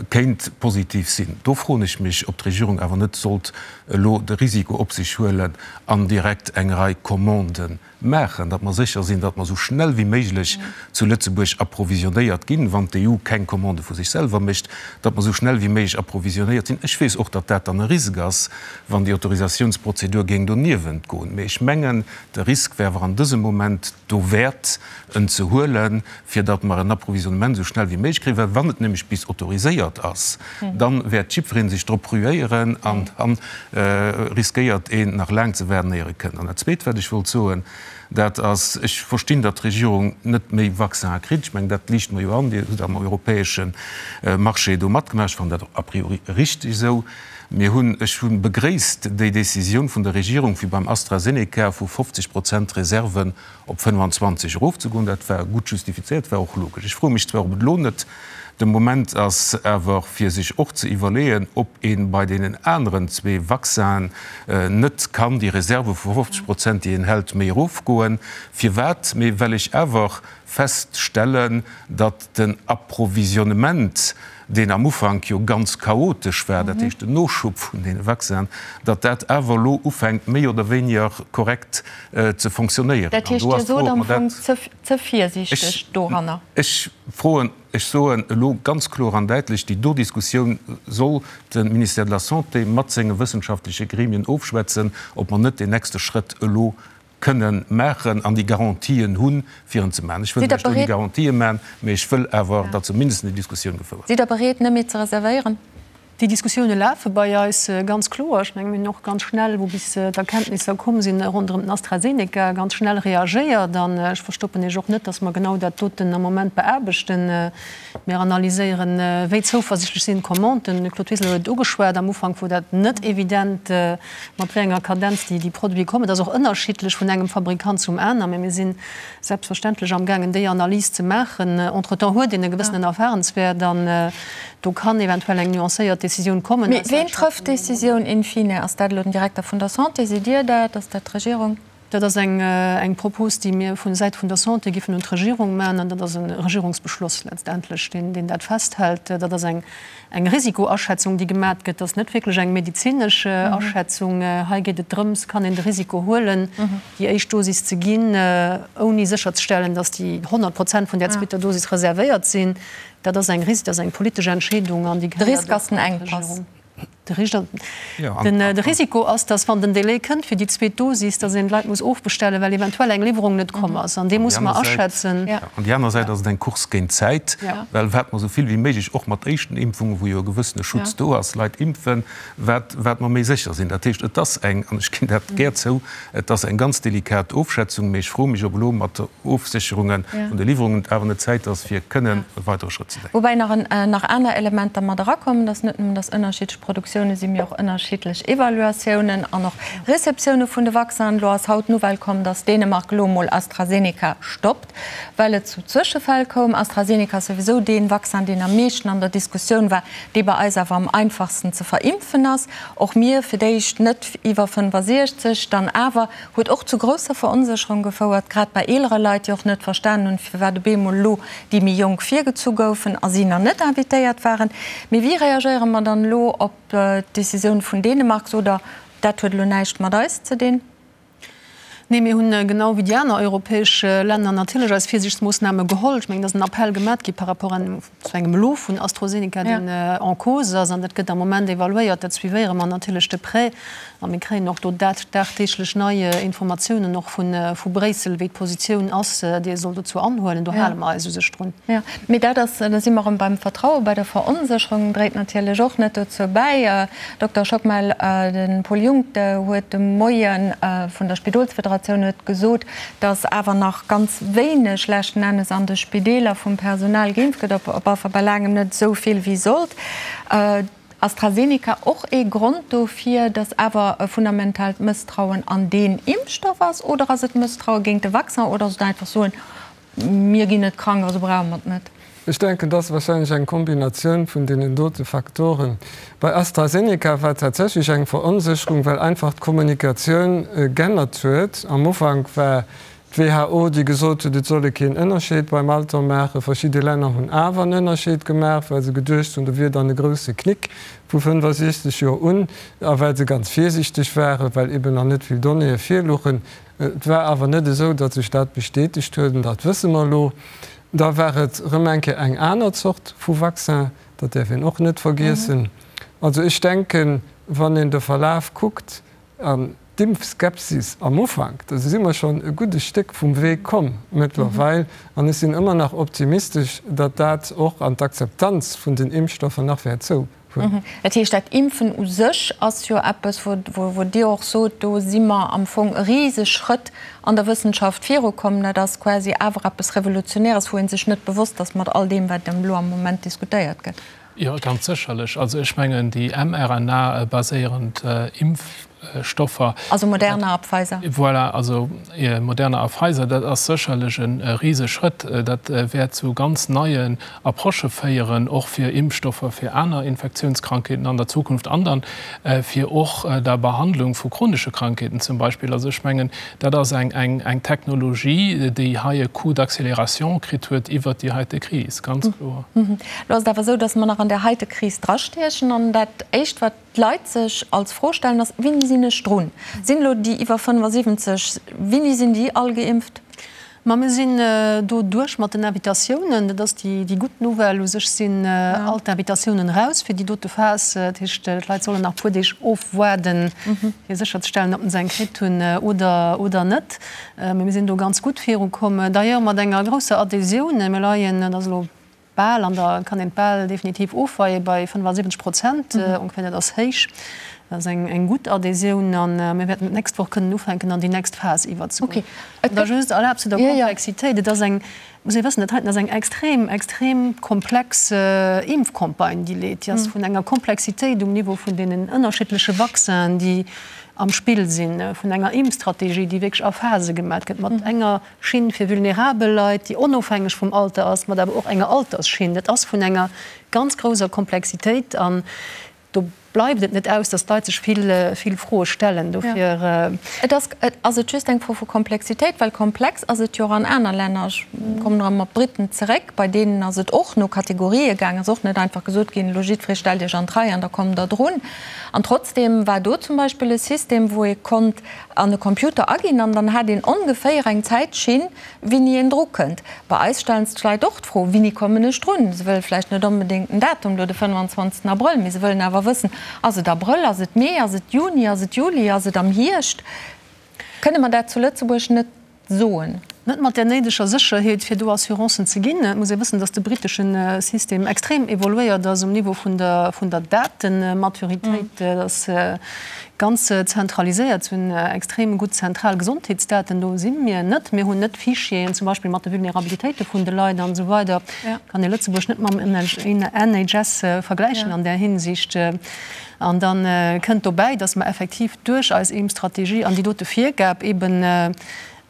kéint positiv sinn. Do froen ech mech, ob d'Regierung awer net sollt elo de Risiko op sech huelen an direkt eng Rei Commanden maachen, datt mer sécher sinn, datt mer esou schnell wéi méiglech zu Lëtzebuerg approvisionnéiert ginn, wann d'EU keng Commande vu sech selwer mécht, datt mer esou schnell wéi méiglech approvisionnéiert sinn. Ech weess och, datt dat dann e Risk ass, wann déi Autorisatiounsprozedur géing doniewent goen. Mee ech mengen, de Risk wär awer an dësem Moment dowäert, en ze huelen, fir datt mer en Approvisionnement esou schnell wéi méiglech kréien, well wann et nämlech bis autoriséiert ass, da wäert jiddweree sech drop ruéieren an da riskéiert een nach laang ze waarden, éier e kënnt. An dat Zweet, wat ech wollt soen, dat ass, ech verstinn, datt d'Regierung net méi Vaccinen kritt. Ech mengen, dat liicht mer jo an. Dir hutt am europäesche Marché do matgemaach. Ech fannen dat och a priori richteg esou. Mir hunn, ech hu begréisst déi Décisioun vun der Regierung, fir beim AstraZeneca vu 50 Prozent Reserven op 25 erofzegoen. Dat war gutt justifizéiert, war och logesch. Ech froe mech zwar, ob et elo net de Moment ass awer, fir sech och ze iwwerleeën, ob ee bei deenen aneren zwee Vaccinen net kann déi Reserve vu 50 Prozent, déi een hält, méi erofgoen. Firwat? Mee well ech awer feststellen, datt den Approvisionnement, deen am Ufank jo ganz chaotesch war, dat heescht den Noschub vun deene Vaccinen, datt dat awer elo ufänkt méi oder wéiniger korrekt ze fonctionnéieren. Dat heescht, Dir sot am Fong ze virsiichteg doranner? Ech froen, ech soen elo ganz kloer an däitlech, déi do Diskussioun soll de Ministère de la Santé mat senge wëssenschaftleche Gremien ofschwätzen, ob mer net deen nächste Schrëtt elo kënnen maachen an déi Garantien hunn, fir en ze maachen. Ech wëll lech do déi Garantië maachen, mä ech wëll awer, datt zumindest déi Diskussioun gefouert gëtt. Sidd Der bereet, net méi ze reservéieren? Déi Diskussioune lafe bei eis, ganz kloer. Ech menge mir hunn och ganz schnell, wou bis d'Erkenntnisser komm sinn ronderëm den AstraZeneca, ganz schnell reagéiert. An ech verstoppen Iech och net, datt mer genau dat doten am Moment beaarbechten. Mir analyséieren, wéi zouversichtlech sinn d'Commanden. De Claude Wiseler huet et ugeschwat, am Ufank wor dat net evident, mat wéi enger Kadenz déi Produite kommen. Et ass och ënnerschiddlech vun engem Fabrikant zum aner, mä mir sinn selbstverständlech amgaangen, déi Analys ze maachen. Entretemps huet een e gewëssenen Erfahrenswäert an do kann eventuell eng nuancéiert Décisioun kommen. Mee ween trëfft d'Décisioun in fine? Ass dat elo den Direkter vun der Santé? Sidd Dir dat? Ass dat d'Regierung? Dat ass eng Propos, déi mir vu Säit vun der Santé giffen un d'Regierung maachen. An dat ass e Regierungsbeschloss letztendlech, deen dat festhält. Dat ass eng Risikoaschätzung, déi gemat gëtt. Dat ass net wierklech eng medezinesch Aschätzung. Hei geet et drëms, Kann een de Risiko huelen, déi éischt Dosis ze ginn, ouni sécherzestellen, datt déi 100 Prozent vun där zweeter Dosis reservéiert sinn? Dat ass eng Ris-, dat ass eng politesch Entscheedung an déi De Risk ass den Enkpass. De Risiko ass, datt wann den Délai kënnt fir déi zweet Dosis, datt een d'Leit muss ofbestellen, well eventuell eng Liwwerung net komm ass. An dee muss mer aschätzen. An déi aner Säit ass et eng Course géint d'Zäit, well wat mer esou vill wéi méiglech, och mat éischten Impfungen, wou jo e gewëssene Schutz do ass, Leit impfen, wat wat mer méi sécher sinn. Dat heescht, et ass eng, an ech ginn dat gär zou, et ass eng ganz delikat Ofschätzung, mee ech froe mech, ob elo mat Ofsécherunge vun de Liwwerungen et awer net Zäit ass, fir kënnen e weidere Schrëtt ze denken. Woubäi nach aner Elementer mat erakommen, dass net nëmmen, dass ënnerschiddlech Produktioune sinn, mee och ënnerschiddlech Evaluatiounen an och Receptioune vun de Vaccinen. Elo ass haut d'Nouvelle komm, dass Dänemark elo emol AstraZeneca stoppt, well et zu Zwëschefäll koum. AstraZeneca ass souwisou dee Vaccin, deen am meeschten an der Diskussioun war, dee bei eis awer am einfachsten ze verimpfen ass. Och mir fir d'éischt net iwwer 65, dann awer Huet och zu grousser Veronsécherung gefouert, grad bei eelere Leit, déi och net verstanen hunn, firwat op eemol elo déi méi Jonk virgezu goufen a si nach net invitéiert waren. Mee wéi reagéiere mer dann elo op d'Decisioun vun Dänemark? Sot Der, dat huet elo näischt mat eis ze dinn? Nee, mir hunn genau wéi déi aner europäesch Länner natierlech eis Virsiichtsmoossname geholl. Ech mengen, et ass en Appell gemat gi par rapport zu engem Lot vun AstroZeneca, deen en cause ass. An dat gëtt am Moment evaluéiert. Dat suivéiere mer natierlech de près. A mir kréien och do dagdeeglech nei Informatiounen och vu Bréissel, wéi d'Positioun ass, déi ee soll dozou anhuelen. Do hale mer eis u sech drun. Jo, mee dat ass, da si mer erëm beim Vertrauen, bei der Veronsécherung, dréit natierlech och net dozou bäi. Dokter Schockmel, de Paul Junck huet de Moie vun der Spidolsfederatioun huet gesot, datt awer nach ganz wéineg leschten Ennes an de Spideeler vum Personal geimpft gëtt, op alle Fall bei laangem net esou vill wéi sollt. AstraZeneca och ee Grond dofir, datt awer e fundamentaalt Mësstrauen an deen Impfstoff ass? Oder ass et Mësstraue géint de Vaccin? Oder ass et einfach soen, Mir ginn net krank, also brauche mer et net. Ech denken, et ass wahrscheinlech eng Kombinatioun vun deenen dote Faktoren. Bei AstraZeneca war tatsächlech eng Veronsécherung, well einfach d'Kommunikatioun g'ännert huet. Am Ufank war d'WHO, déi gesot huet, et soll ee keen Ënnerscheed beim Alter maachen. Verschidde Länner hunn awer en Ënnerscheed gemaach, well se geduecht hunn, do wier dann e grousse Knick vu 65 Joer un, a well se ganz virsiichteg waren, well eben nach net vill Donnéeë virluchen. Et war awer net esou, datt sech dat bestätegt huet, an dat wësse mer elo. Da war et erëm eng Kéier eng aner Zort vu Vaccin, dat däerf een och net vergiessen. Also ech denken, wann een de Verlaf kuckt an d'Impfskepsis am Ufank, da si mer schonn e gudde Stéck vum Wee komm mëttlerweil. An ech sinn ëmmer nach optimistesch, datt dat och an d'Akzeptanz vun den Impfstoffer nach wäert zou. Hunn. Dat heescht, dat Impfen u sech ass jo eppes, wou Dir och sot, do si mer am Fong e Riseschrëtt an der Wëssenschaft virukomm. Dat ass quasi awer eppes Revolutionäres, wou ee sech net bewosst ass mat all deem, wat elo am Moment diskutéiert gëtt. Jo, ganz sécherlech. Also ech mengen, déi mRNA-baséierend Impfstoffer. Also Moderna a Pfizer. Voilà, also Moderna a Pfizer, dat ass sécherlech e Riseschrëtt. Dat wäert zu ganz neien Approchë féieren, och fir Impfstoffer fir aner Infektiounskrankheeten an der Zukunft an dann fir och der Behandlung vu chronesche Krankheeten zum Beispill. Also ech mengen, dat ass eng Technologie, déi hei e Coup d'accélération kritt huet iwwert déi heite Kris, ganz kloer. Elo ass et awer esou, datt mer nach an där heite Kris drastiechen an dat Éischt, wat d'Leit sech als Fro stellen, ass, Wéini sinn ech drun? Sinn elo déi iwwer 75, wéini sinn déi all geimpft? Ma mir sinn do duerch mat den Invitatiounen. Dat ass déi gutt Nouvelle. U sech sinn all d'Invitatiounen eraus fir déi dote Phas. Dat heescht, d'Leit sollen nach e puer Deeg ofwaarden, fir sécherzestellen, ob se eng kritt hunn oder net. Mee mir sinn do ganz gutt virukomm, d'ailleurs mat enger grousser Adhésioun. Mir leien, dat ass elo bal an der, kann een et bal definitiv ofweien, bei 75 Prozent ongeféier. Dat ass héich, dat ass eng gutt Adhésioun a mir wäerten d'nächst Woch kënnen ufänken an déi nächst Phas iwwerzegoen. An da just erlaabt zu der Komplexitéit, et ass eng, muss ee wëssen, dat heiten ass eng extrem, extrem komplex Impfcampagne, déi leet. Déi ass vun enger Komplexitéit um Niveau vun deenen ënnerschiddleche Vaccinen, déi am Spill sinn, vun enger Impfstrategie, déi wierklech a Phase gemat gëtt, mat enger Schinn fir vulnerabel Leit, déi onofhängeg vum Alter ass, mat awer och enger Altersschinn. Dat ass vun enger ganz grousser Komplexitéit an do bleift et net aus, datt d'Leit sech vill, vill Froe stellen. Dofir. Et ass, ass et just eng Fro vu Komplexitéit? Well komplex ass et jo och an aner Länner. Ech kommen erëm op d'Briten zeréck. Bei deenen ass et och no Kategorië gaangen. Et ass och net einfach gesot ginn, elo jiddweree stellt Iech an d'Rei an da kommt Der drun. An trotzdeem war do zum Beispill e System, wou ee konnt an e Computer aginn an dann hat een ongeféier eng Zäitschinn, wéini een dru kënnt. Bei eis stellen sech d'Leit och d'Fro, Wéini kommen ech drun? Se wëlle vläicht net onbedéngt den Datum, elo de 25. Abrëll, mee se wëllen awer wëssen, Ass et Abrëll, ass et Mee, ass et Juni, ass et Juli, ass et am Hierscht? Kënne mer dat zu Lëtzebuerg net soen. Net mat där néideger Sécherheet, fir do Assurancen ze ginn. Et muss ee wëssen, datt de brittesche System extrem evoluéiert ass um Niveau vun der, vun der Datematuritéit. Dat ass ganz zentraliséiert. Se hunn extrem gutt zentral Gesondheetsdaten. Do si mir net. Mir hunn net Fichieren, zum Beispill mat de Vulnerabilitéite vun de Leit an esou weider. Kann ee Lëtzebuerg net mam NHS vergläichen an där Hinsicht. An da kënnt dobäi, dass mer effektiv duerch eis Impfstrategie an déi dote Virgab eben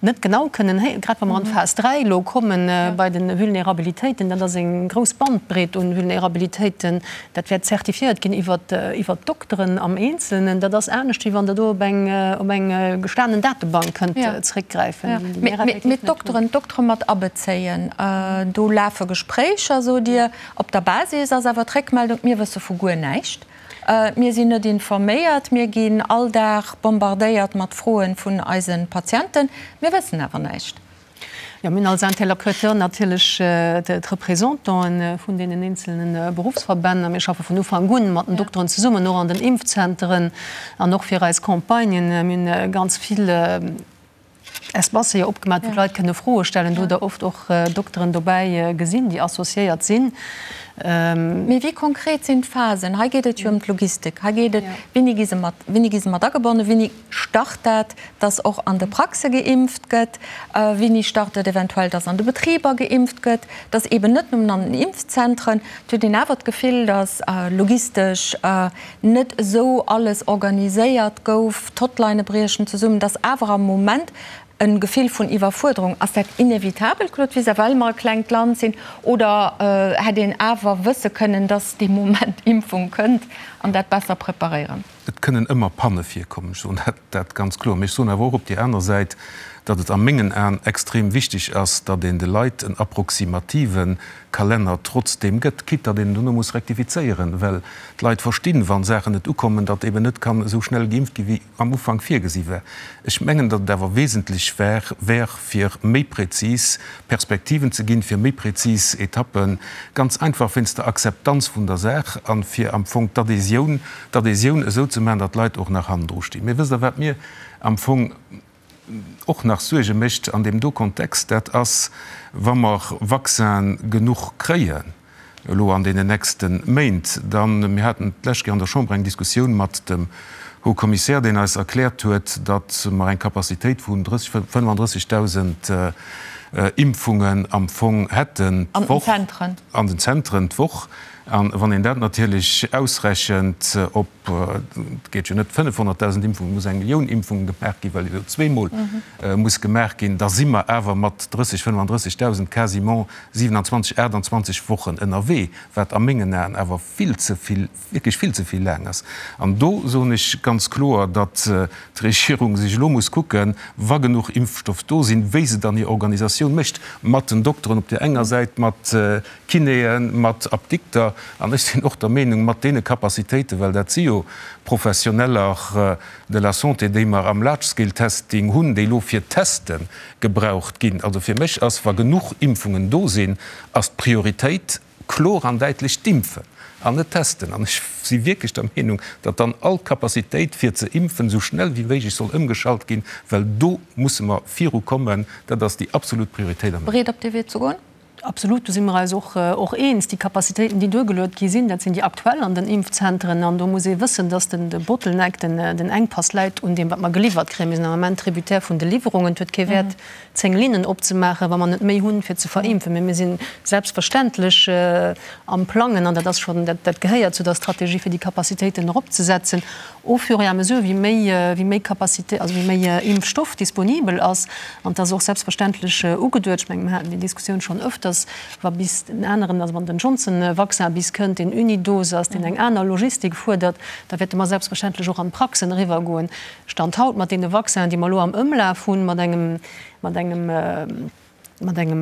net genau kënnen, grad wa mer an d'Phas 3 elo kommen bei de Vulnerabilitéiten, dat ass eng grouss Bandbreet un Vulnerabilitéiten, dat wäert zertifiéiert ginn iwwert d'Dokteren am Eenzelnen. Dat ass anescht, wéi wann Der do op eng op eng gestanen Datebank kënnt zréckgräifen, déi mir effektiv net hunn. Mee d'Dokteren, d'Doktere mat abezéien, do lafe Gespréicher, sot Dir. Op der Basis ass awer d'Réckmeldung, mir wësse vu guer näischt. Mir sinn net informéiert, mir ginn all Dag bombardéiert mat Froen vun eise Patienten, mir wëssen awer näischt. Jo, mir hunn als Interlocuteur natierlech d'Représentante vun deenen eenzelne Beruffsverbänn a mir schaffe vun Ufank un mat den Dokteren zesummen, och an den Impfzenteren an och fir eis Campagnen. Mir hunn ganz vill Espacë jo opgemaach, wou d'Leit kënne Froe stellen. Do hutt Der oft och Dokteren dobäi gesinn, déi associéiert sinn. Mee wéi konkret sinn d'Phasen? Hei geet et jo ëm d'Logistik. Hei geet et, wéini gi se mat, wéini gi se mat agebonnen, wéini start dat, dass och an de Praxe geimpft gëtt, wéini start et eventuell, dass an de Betriber geimpft gëtt, dass eeben net nëmmen an den Impfzentren. Et huet een awer d'Gefill, dass logistesch net esou alles organiséiert gouf, d'Hotlinë briechen zesummen, dass awer am Moment e Gefill vun Iwwerfuerderung. Ass dat inevitabel, Claude Wiseler, well mer e klengt Land sinn, oder hätt een awer wësse kënnen, dass dee Moment Impfung kënnt an dat besser preparéieren? Et kënnen ëmmer Panne virkommen, ech soen dat ganz kloer. Mee ech soen awer och op där aner Säit, datt et a mengen Aen extrem wichteg ass, datt een de Leit en approximative Kalenner trotzdeem gëtt, quitte datt een en dono muss rektifizéieren, well d'Leit verstinn, wa Saachen net ukommen, datt eben net kann esou schnell geimpft gi wéi am Ufank virgesi war. Ech mengen, datt et awer wesentlech war, wär, fir méi prezis Perspektiven ze ginn, fir méi prezis Etappen, ganz einfach wéinst der Akzeptanz vun der Saach a fir am Fong d'Adhésioun, d'Adhésioun esou ze maachen, datt d'Leit och nach hannendru stinn. Mee wësst Der, wat mir am Fong och nach Suerge mécht an deem do Kontext? Dat ass, wa mer Vaccinen genuch kréien, elo an deenen nächste Méint, dann, mir haten d'lescht Kéier an der Chamber eng Diskussioun mat dem Haut Commissaire, deen eis erkläert huet, datt mer eng Capacitéit vun 30, 35.000 Impfungen am Fong hätten d'Woch, an den Zentren d'Woch. A wann een dat natierlech ausrechent op, et geet jo net 500.000 Impfungen, et muss eng Millioun Impfungen gemaach ginn, well jo zweemol muss gemaach ginn, da si mer awer mat 30, 35.000 quasiment 27, 28 Wochen ënnerwee, wat a mengen Aen awer vill ze vill, wierklech vill ze vill laang ass. An do soen ech ganz kloer, datt d'Regierung sech elo muss kucken, wa genuch Impfstoff do sinn, wéi se dann hir Organisatioun mécht, mat den Dokteren op där enger Säit, mat Kinéen, mat Apdikter, an ech sinn och der Meenung, mat deene Capacitéiten, well dat si jo Professioneller de la santé, déi mer am Large-Scale-Testing hunn, déi elo fir d'Teste gebraucht ginn. Also fir mech ass, wa genuch Impfungen do sinn, ass d'Prioritéit kloer an däitlech d'Impfen an net d'Testen. An ech si wierklech der Meenung, datt dann all Capacitéit fir ze impfen esou schnell wéi méiglech soll ëmgeschalt ginn, well do musse mer virukommen. Dat ass déi absolut Prioritéit am. Bereet op dee Wee ze goen? Absolut, do si mer eis och och eens. Déi Capacitéiten, déi duergeluet gi sinn, dat sinn déi aktuell an den Impfzentren. An do muss ee wëssen, dass den de Bottleneck, den den Enkpass läit un deem, wat mer geliwwert kréien. Mir sinn am Ament tributaire vun de Liwwerungen. Et huet kee Wäert, 10 Linnen opzemaachen, wa mer net méi hunn, fir ze verimpfen. Mee mir si selbstverständlech am Plangen, an dat ass schonn, dat dat gehéiert zu der Strategie, fir déi Capacitéiten eropzesetzen au fur et à mesure, wéi méi, wéi méi Capacité, also wéi méi Impfstoff disponibel ass. An et ass och selbstverständlech ugeduet, ech mengen, mir haten déi Diskussioun schonn öfters, wa bis den aneren, also wann den Johnson-Vaccin bis kënnt, deen Unidose ass, deen eng aner Logistik fuerdert, da wäerte mer selbstverständlech och an d'Praxen eriwwergoen. Stand haut mat deene Vaccinen, déi mer elo am Ëmlaf hunn, mat engem, mat engem, Mat engem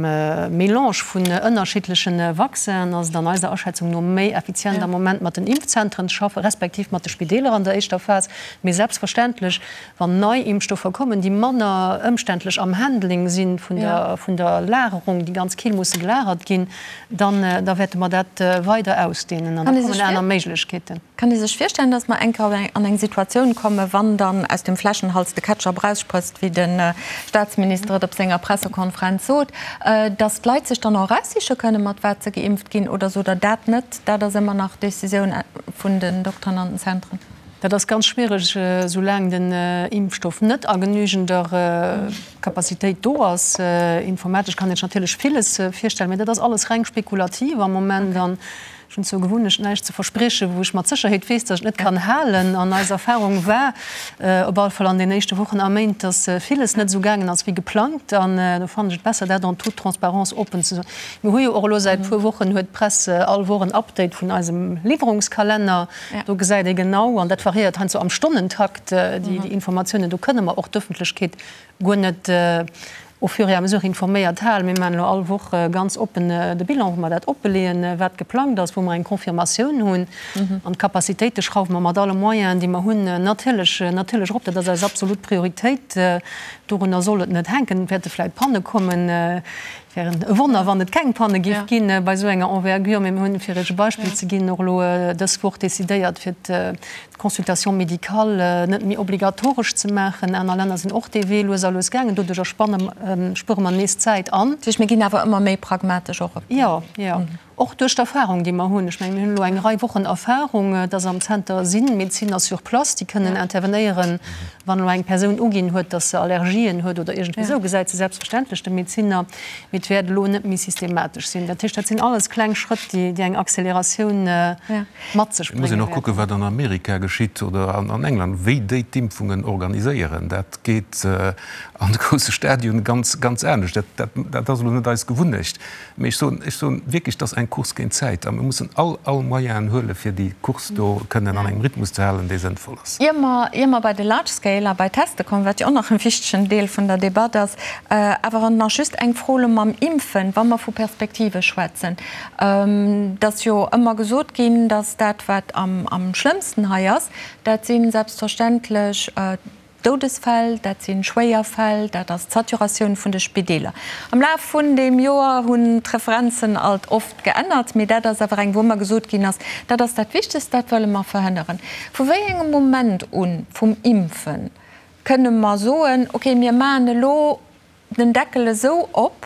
Melange vun ënnerschiddleche Vaccinen ass et an eiser Aschätzung no méi effizient am Moment mat den Impfzentren ze schaffen, respektiv mat de Spideeler an der éischter Phas. Mee selbstverständlech, wann nei Impfstoffer kommen, déi manner ëmständlech am Handling si vun der, vun der Lagerung, déi ganz kill musse gelagert ginn, dann, da wäerte mer dat weider ausdehnen an da kommen aner Méiglechkeeten. Kann ee sech virstellen, datt mer eng Kéier an eng Situatioun kommen, wann dann aus dem Fläschenhals de Ketchup eraussprëtzt, wéi de Staatsminister et op senger Pressekonferenz sot, datt d'Leit sech dann och eraussiche kënnen, mat wat se geimpft ginn, oder sot Der dat net, dat ass ëmmer nach d'Decisioun vun den Dokteren an den Zentren? Dat ass ganz schwiereg, soulaang den Impfstoff net a genügender Capacitéit do ass. Informatesch kann een sech natierlech villes virstellen, mä dat ass alles reng spekulativ am Moment. An Ech hunn zur Gewunnecht, näischt ze verspriechen, wou ech mat Sécherheet weess, datt ech et net kann halen. An eis Erfahrung war op alle Fall an den éischte Wochen a Méint, datt villes net esou gaangen ass wéi geplangt. An do fannen ech et besser, dat en toute transparence oppen ze soen. Mir hu jo och elo säit e puer Wochen, huet d'Press all Woch en Update vun eisem Liwwerungskalenner. Do gesäit ee genau, an dat variéiert heiansdo am Stonnentakt, déi Informatiounen. Do kënne mer och d'Ëffentlechkeet guer net. Au fur et à mesure informéiert halen. Mir maachen elo all Woch ganz oppen de Bilan, wou mer dat oppeleeën, wat geplangt ass, wou mer eng Confirmatioun hunn. An d'Capacitéite schrauwe mer mat alle Moyenen, déi mer hunn, natierlech, natierlech erop. Dat ass eis absolut Prioritéit. Dorunner soll et net hänken. Et wäerte vläicht Panne kommen. Et wär e Wonner, wann et keng Panne géif ginn bei esou enger Envergure. Mee mir hunn, fir Iech e Beispill ze ginn, och elo dës Woch decidéiert, fir d'Consultation médicale net méi obligatoresch ze maachen. Aner Länner sinn och dee Wee lues a lues gaangen. Doduercher spanne, spuere mer nees Zäit an. Dat heescht, mir ginn awer ëmmer méi pragmatesch och op dee. Jo, jo. Och duerch d'Erfahrung, déi mer hunn. Ech mengen, mir hunn elo eng Rei Wochen Erfahrung, dass am Zenter si Medezinner sur place, déi kënnen intervenéieren, wann elo eng Persoun uginn huet, dass se Allergien huet oder iergendwéi esou, gesäit se selbstverständlech de Medezinner. Mee et wäert elo net méi systematesch sinn. Dat heescht, dat sinn alles kleng Schrëtt, déi eng Acceleratioun mat sech Et muss brénge een och kucken, wäerten. wat an Amerika geschitt oder an England, wéi déi d'Impfungen organiséieren. Dat geet an de grousse Stadionen ganz, ganz anescht. Dat, dat ass elo net eis Gewunnecht. Mee ech soen, ech soen wierklech, et ass eng Course géint d'Zäit a mir mussen all, all Moyenen huelen, fir déi Course do kënnen an engem Rhythmus ze halen, dee sënnvoll ass. Ier mer, ier mer bei de Large Scale a bei d'Teste kommen, wat jo och nach e wichtegen Deel vun der Debatt ass, awer nach just eng Fro elo mam Impfen, wa mer vu Perspektive schwätzen. Et ass jo ëmmer gesot ginn, datt dat, wat am, am schlëmmsten hei ass, dat si selbstverständlech Doudesfäll, dat si schwéier Fäll, dat ass d'Saturatioun vun de Spideeler. Am Laf vun deem Joer hunn d'Referenzen alt oft geännert, mee dat ass awer eng, wou ëmmer gesot ginn ass, dat ass dat Wichtegst, dat wëlle mer verhënneren. Vu wéi engem Moment u vum Impfen kënne mer soen, okay, mir maachen elo den Deckel esou op,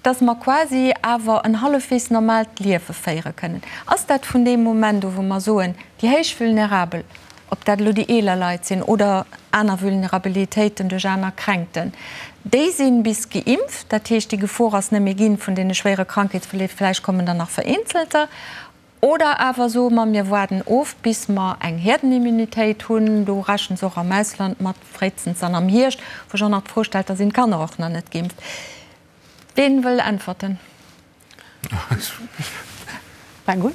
dass mer quasi awer en hallefweegs normaalt Liewe féiere kënnen. Ass dat vun deem Moment u wou mer soen, déi héich Vulnerabel, ob dat elo déi eeler Leit sinn oder aner Vulnerabilitéiten duerch aner Kränkten, déi si bis geimpft, dat heescht déi Gefor ass net méi ginn vun deene schwéiere Krankheetsverleef, vläicht kommen der nach vereenzelter, Oder awer soe mer, mir waarden of, bis mer eng Herdenimmunitéit hunn. Do rechne se och am Ausland mat, fréistens dann am Hierscht, wou ech och nach d'Fro stellt, da sinn d'Kanner och nach net geimpft. Ween wëll äntwerten? Fang un.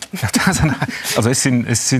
Also ech sinn, ech si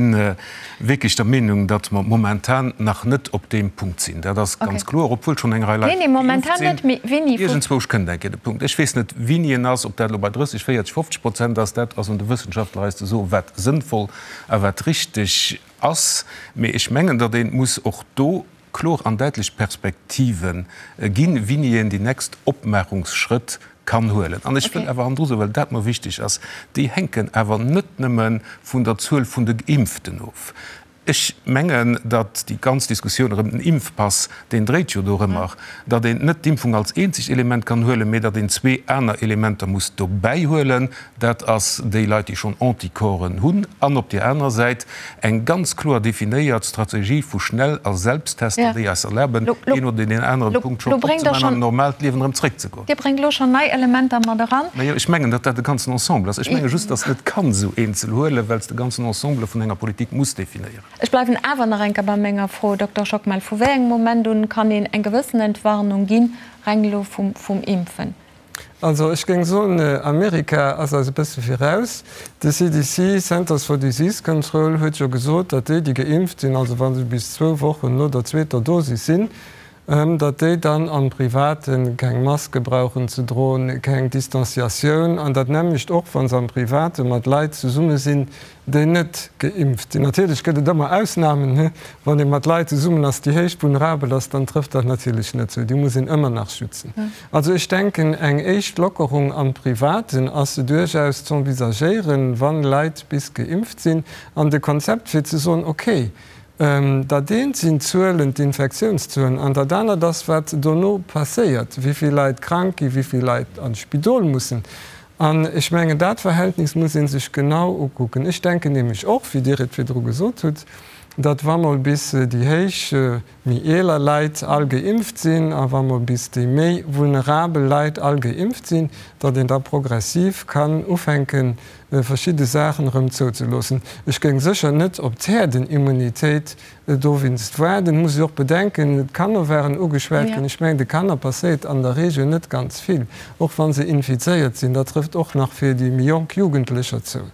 wierklech der Meenung, datt mer momentan nach net op deem Punkt sinn. Dat ass ganz kloer, obwuel schonn eng Rei Leit geimpft sinn. Iergendzwousch kënnt eng Kéier de Punkt. Ech weess net, wéini en ass, ob dat elo bei 30, 40, 50 Prozent ass. Dat ass un de Wëssenschaftler eis ze soen, wat sënnvoll a wat richteg ass. Mee ech mengen, datt ee muss och do kloer an däitlech Perspektive ginn, wéini een déi nächst Opmaachungsschrëtt kann huelen. An ech wëll awer hannendru soen, well dat mer wichteg ass, déi hänken awer net nëmme vun der Zuel vun de Geimpften of. Ech mengen, datt déi ganz Diskussioun erëm den Impfpass, deen dréit jo dorëmmer, datt een net d'Impfung als eenzegt Element kann huelen, mee datt een zwee aner Elementer muss dobäi huelen. Dat ass déi Leit, déi schonn Anticorpsen hunn, an op där anerer Säit eng ganz kloer definéiert Strategie vu Schnell a Selbsttester, déi eis erlaben, een oder deen anere Punkt schonn opzemaachen an an normaalt Liewen erëm zréckzegoen. Dir bréngt elo schonn nei Elementer mat eran. Majo, ech mengen, datt dat e ganzen Ensemble ass. Ech menge just, datt s net kann esou eenzel huelen, well s de ganzen Ensemble vun enger Politik muss definéieren. Ech bleiwen awer nach eng Kéier bei menger Fro, Dokter Schockmel, Vu wéi engem Moment un kann een eng gewëssen Entwarnung ginn, reng elo vum Impfen? Also ech géing soen, Amerika ass eis e bësse viraus. De CDC, Centers for Disease Control, huet jo gesot, datt déi, déi geimpft sinn, also wa se bis zwou Wochen no der zweeter Dosis sinn, datt déi dann am Private keng Maske brauchen ze droen, keng Distanciatioun, an dat nämmlecht och, wa se am Private mat Leit zesumme sinn, déi net geimpft sinn. Natierlech gëtt et ëmmer Ausnamen, wann ee mat Leit zesummen ass, déi héich vulnerabel ass, dann trëfft dat natierlech net zou, déi muss een ëmmer nach schützen. Also ech denken, eng éischt Lockerung am Privaten ass duerchaus z'envisagéieren, wann Leit bis geimpft sinn, an de Konzept fir ze soen, okay, Dat eent sinn d'Zuelen, d'Infektiounszuelen, an dat anert ass, wat dono passéiert, wéi vill Leit krank ginn, wéi vill Leit an d'Spidol mussen. An ech mengen, dat Verhältnis muss ee sech genau ukucken. Ech denken nämlech och, wéi Dir et virdru gesot hutt, datt wa mol bis déi héich, méi eeler Leit all geimpft sinn a wa mol bis déi méi vulnerabel Leit all geimpft sinn, datt een da progressiv kann ufänken. verschidde Saachen erëm zouzeloossen. Ech géing sécher net op d'Häerdenimmunitéit dowéinst waarden. Muss ech och bedenken, d'Kanner waren ugeschwat ginn. Ech mengen, de Kanner passéiert an der Regel net ganz vill, och wa se infizéiert sinn. Dat trëfft och nach fir déi méi jonk Jugendlecher zou.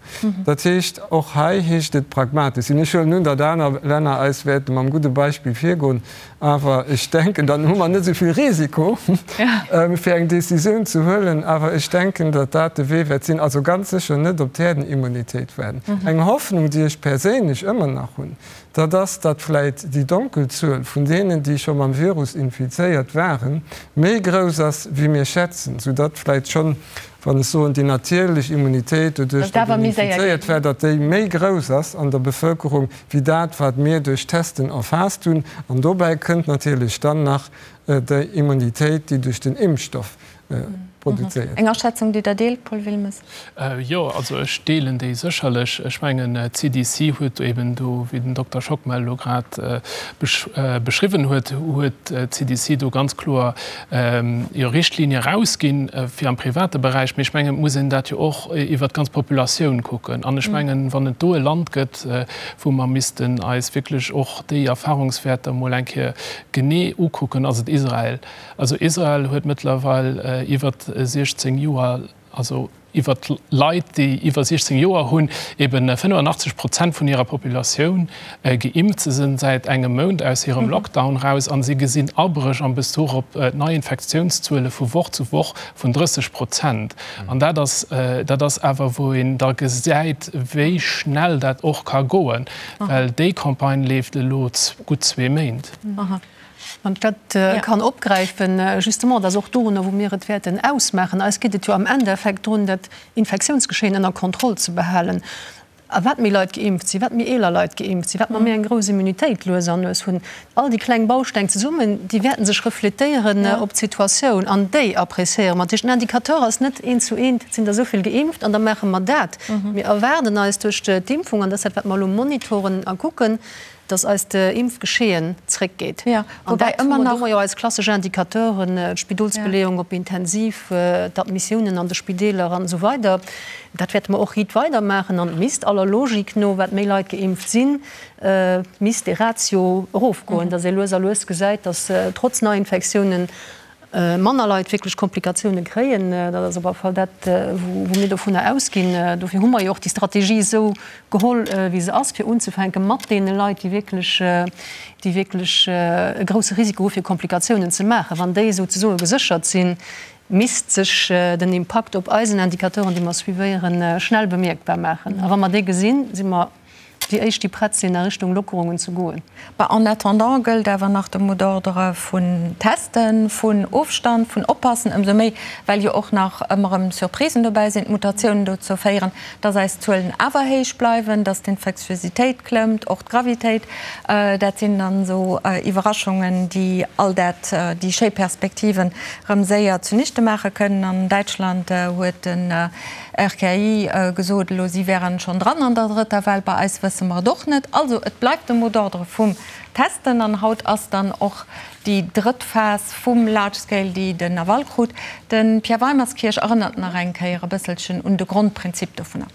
Dat heescht, och hei heescht et pragmatesch sinn. Ech huelen un, datt aner Länner eis wäerte mam gudde Beispill virgoen. Awer ech denken, dann hu mer net esou vill Risiko, fir eng Décisioun ze huelen. Awer ech denken, datt dat de Wee wäert sinn. Also ganz sécher net op d'Häerdenimmunitéit waarden. Eng Hoffnung, déi ech perséinlech ëmmer nach hunn, dat ass, datt vläicht déi Donkelzuel vun deenen, déi scho mam Virus infizéiert waren, méi grouss ass, wéi mir schätzen, soudatt vläicht schonn, wann ech soen, déi natierlech Immunitéit, doduerch datt een infizéiert war, datt déi méi grouss ass an der Bevëlkerung, wéi dat, wat mir duerch Testen erfaasst hunn. An dobäi kënnt natierlech dann nach déi Immunitéit, déi duerch den Impfstoff produzéiert gëtt. Eng Aschätzung, déi Der deelt, Paul Wilmes? Jo, also ech deelen déi sécherlech. Ech mengen, d'CDC huet eben do, wéi den Dokter Schockmel elo grad beschriwwen huet, huet d'CDC do ganz kloer jo Richtlinie erausginn fir am private Beräich. Mee ech mengen, et muss een dat jo och iwwert d'ganz Populatioun kucken. An ech mengen, wann et do e Land gëtt, wou mer missten eis wierklech och déi Erfahrungswäerter emol eng Kéier genee ukucken, ass et Israel. Also Israel huet mëttlerweil iwwert 16 Joer, also iwwert Leit, déi iwwer 16 Joer hunn, eben 85 Prozent vun hirer Populatioun geimpft. Se sinn säit engem Mount aus hirem Lockdown raus a si gesinn Abréch am Bezuch op d'Neiinfektiounszuele vu Woch zu Woch vun 30 Prozent. An dat ass, dat ass awer, wou een da gesäit, wéi schnell dat och ka goen, well déi Campagne leeft elo gutt zwee Méint. Wann ech dat kann opgräifen, justement, dat ass och dorunner, wou mir et wäerten ausmaachen. Eis geet et jo am Endeffekt drun, dat Infektiounsgeschehen ënner Kontroll ze behalen. A wat méi Leit geimpft sinn, wat méi eeler Leit geimpft sinn, wat mer méi eng grouss Immunitéit lues an lues hunn, all déi kleng Bausteng zesummen, déi wäerten sech refletéieren op d'Situatioun an déi appréciéiere mer. Dat heescht, den Indicateur ass net eent zu eent, et sinn der esou vill geimpft an da maache mer dat. Mir erwaarden eis duerch d'Impfung, an dat ass dat, wat mer elo monitoren a kucken, dass eist Impfgeschehen zréckgeet. An dat hu mer, do hu mer jo eis klassesch Indicateuren, d'Spidolsbeleeung op Intensiv, d'Admissiounen an de Spideeler an esou weider. Dat wäerte mer och riit weidermaachen. An et misst aller Logik no, wat méi Leit geimpft sinn, misst dee Ratio erofgoen, dass ee lues a lues gesäit, dass trotz Neiinfektiounen manner Leit wierklech Komplikatioune kréien. Dat ass op alle Fall dat, wou mir dovunner ausginn. Dofir hu mer jo och déi Strategie esou geholl, wéi se ass, fir unzefänke mat deene Leit, déi wierklech, déi wierklech e grousse Risiko hu fir Komplikatiounen ze maachen. Wann déi souzesoe geséchert sinn, misst sech den Impakt op eisen Indicateuren, déi mer suivéieren, schnell bemierkbar maachen. A wa mer dee gesinn, si mer déi éischt, déi prett sinn, a Richtung Lockerungen ze goen. Bah, en attendant gëllt awer nach de Mot d'ordre vun Testen, vun Ofstand, vun Oppassen, ëmsou méi, well jo och nach ëmmer erëm Surprisen dobäi sinn, d'Mutatiounen dozou féieren, dass eis Zuelen awer héich bleiwen, dass d'Infektiositéit klëmmt, och d'Gravitéit. Dat sinn dann esou Iwwerraschungen, déi all dat, déi schéi Perspektiven erëm séier zunichte maache kënnen. An Däitschland huet den RKI gesot elo, si wären schonn dran an der drëtter Well. Bei eis wësse mer et och net. Also et bleift de Mot d'ordre vum Testen an haut ass dann och déi drëtt Phas vum Large Scale, déi den Aval krut. De Pierre Weimerskirch erënnert nach eng Kéier e bësselchen un de Grondprinzip dovunner.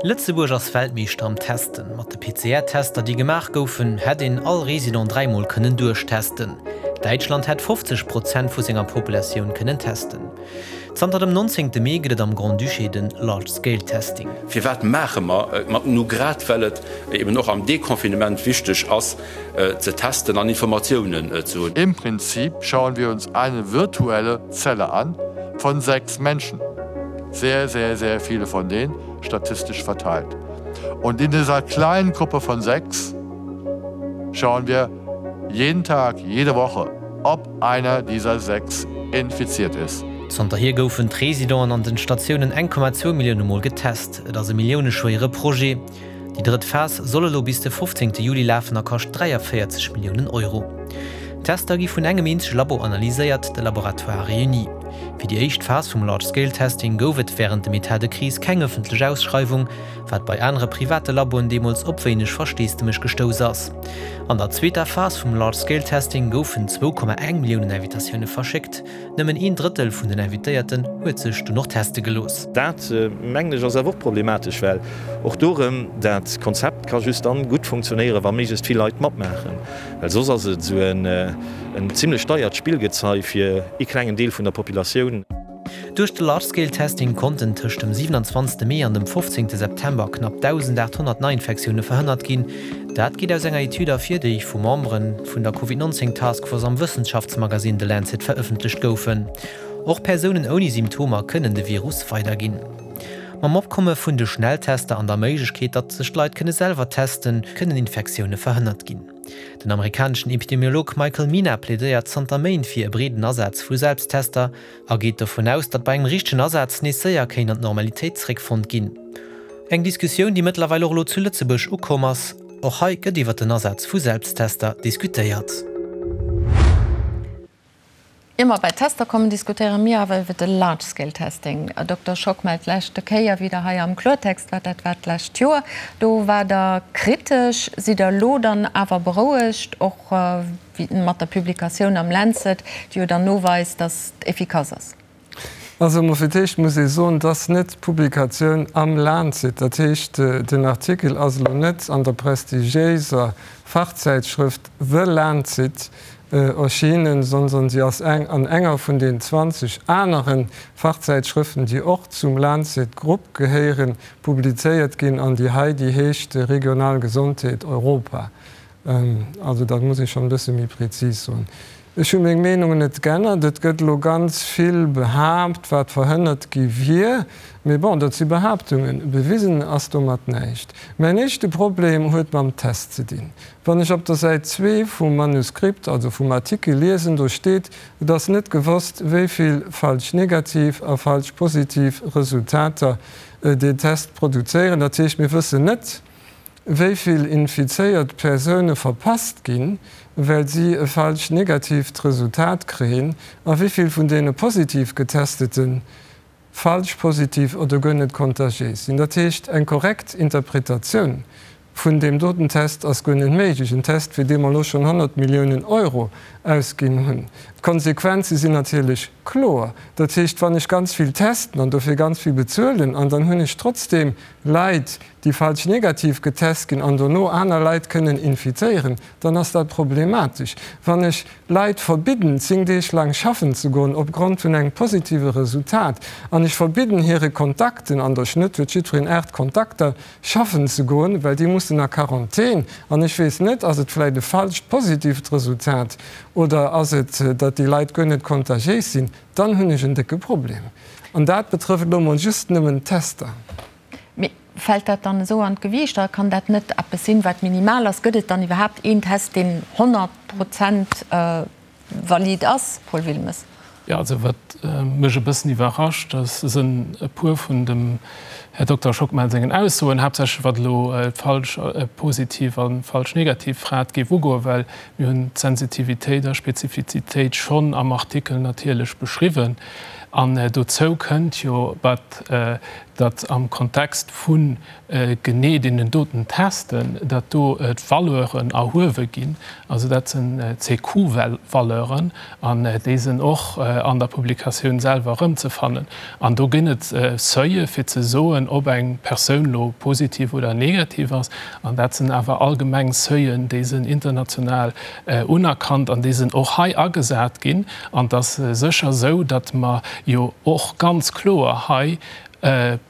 Lëtzebuerg ass Weltmeeschter am Testen. Mat de PCR-Tester, déi gemaach goufen, hätt een all Resident dräimol kënnen duerchtesten. Däitschland hätt 50 Prozent vu senger Populatioun kënnen testen. Zanter dem 19. Mee gëtt et am Grand-Duché de Large Scale Testing. Firwat maache mer et mat? Nu grad well et eben och am Deconfinement wichteg ass ze testen an Informatiounen ze hunn. Im Prinzip schauen wir uns eine virtuelle Zelle an von 6 Menschen. Sehr, sehr, sehr viele von denen statistisch verteilt. Und in dieser kleinen Gruppe von 6 schauen wir jeden Tag, jede Woche, ob einer dieser 6 infiziert ist. Zanterhier goufen d'Residenten an den Statiounen 1,2 Millioune Mol getest. Et ass e milliouneschwéiere Projet. Déi drëtt Phas soll elo bis de 15 Juli lafen a kascht 43 Milliounen Euro. D'Tester gi vun engem eenzege Labo analyséiert, de Laboratoire Réuni. Fir déi éischt Phas vum Large Scale Testing gouf et wärend dem Etat de crise keng ëffentlech Ausschreiwung, wat bei anere private Laboen deemools op wéineg Versteesdemech gestouss ass. An der zweeter Phas vum Large Scale Testing goufen 2,1 Milliounen Invitatioune verschéckt. Nëmmen een Drëttel vun den Invitéierten huet sech dunn och teste gelooss. Dat, mengen ech, ass awer och problematesch, well och do erëm, dat Konzept ka just dann gutt funktionéieren, wa méiglechst vill Leit matmaachen, well soss ass et esou en zimlech deiert Spillgezei fir ee klengen Deel vun der Populatioun. Duerch de Large-Scale-Testing konnten tëscht dem 27. Mee an dem 15. September knapp 1.800 Neiinfektioune verhënnert ginn. Dat geet aus enger Etüd ervir, déi vu Membere vun der Covid 19 Task Force am Wëssenschaftsmagasinn The Lancet verëffentlecht goufen. Och Persounen ouni Symptomer kënnen de Virus weiderginn. Mam Opkomme vun de Schnelltester an der Méiglechkeet, datt sech d'Leit kënne selwer testen, kënnen Infektioune verhënnert ginn. Den amerikaneschen Epidemiolog Michael Mina plädéiert zanter Méint fir e breeden Asaz vu Selbsttester a geet dovun aus, datt bei engem richtegen Asaz nees séier kéint an d'Normalitéit zeréckfonnt ginn. Eng Diskussioun, déi mëttlerweil och elo zu Lëtzebuerg ukomm ass. Och hei gëtt iwwer den Asaz vu Selbsttester diskutéiert. Ier mer bei d'Tester kommen, diskutéiere mir awer iwwer de Large Scale Testing. Dokter Schockmel, d'leschte Kéier wéi Der hei am Kloertext waart, dat war d'lescht Joer, do waart Der kritesch. Sidd Der elo dann awer berouegt, och mat der Publikatioun am Lancet, déi jo dann noweist, datt et efficace ass? Also emol fir d'éischt muss ee soen, dass net d'Publikatioun am Lancet, dat heescht den Artikel ass elo net an der prestigiéiser Fachzäitschrëft The Lancet erschienen, sondern si ass eng an enger vun den 20 anere Fachzäitschrëften, déi och zum Lancet Grupp gehéieren, publizéiert ginn an déi hei, déi heescht Regional Gesondheet Europa. Also dat muss ee schonn e bësse méi prezis soen. Ech hu meng Meenung net g'ännert. Et gëtt elo ganz vill behaapt, wat verhënnert gi wier. Mee bon, dat si Behaaptungen. Bewisen ass domat näischt. Mäin éischte Problem huet mam Test ze dinn. Wann ech op der Säit zwee vum Manuskript, also vum Artikel liesen, do steet, et ass net gewosst, wéi vill falsch negativ a falsch positiv Resultater deen Test produzéieren. Dat heescht, mir wëssen net, wéi vill infizéiert Persoune verpasst ginn, well si e falsch negatiivt Resultat kréien, a wéi vill vun deene positiv Getestete falsch positiv oder guer net kontagiéis sinn. Dat heescht, eng korrekt Interpretatioun vun deem doten Test ass guer net méiglech, en Test, fir dee mer elo schonn 100 Milliounen Euro ausginn hunn. D'Konsequenze sinn natierlech kloer. Dat heescht, wann ech ganz vill testen an dofir ganz vill bezuelen an dann hunn ech trotzdeem Leit, déi falsch negativ getest ginn an dono aner Leit kënnen infizéieren, dann ass dat problematesch. Wann ech Leit verbidden, 10 Deeg laang schaffen ze goen opgrond vun engem positive Resultat an ech verbidden hire Kontakten, an der Schnëtt huet jiddwereen 8 Kontakter, schaffen ze goen, well déi mussen a Quarantän, an ech weess net, ass et vläicht e falscht positiivt Resultat oder ass et, datt déi Leit guer net kontagiéis sinn, dann hunn ech en décke Problem. An dat betrëfft elo mol just nëmmen d'Tester. Mee fält dat dann esou an d'Gewiicht? A kann dat net eppes sinn, wat minimal ass? Gëtt et dann iwwerhaapt een Test, deen 100 Prozent valid ass, Paul Wilmes? Jo, also wat mech e bëssen iwwerrascht, dat sënn e puer vun dem Här Dokter Schockmel sengen Aussoen, haaptsächlech wat elo d'falsch positiv a falsch negativ Rat géif ugoen, well mir hunn d'Sensitivitéit a Spezifizitéit schonn am Artikel natierlech beschriwwen. An dozou kënnt jo, wat datt am Kontext vu genee deenen doten Testen, datt do d'Valeuren erhuewe ginn, also dat sinn CQ-Valeuren, an déi sinn och an der Publikatioun selwer erëmzefannen. An do ginn et Seuile fir ze soen, ob eng Persoun elo positiv oder negativ ass. An dat sinn awer allgemeng Seuilen, déi sinn international unerkannt an déi sinn och hei agesat ginn. An et ass sécher esou, datt mer jo och ganz kloer hei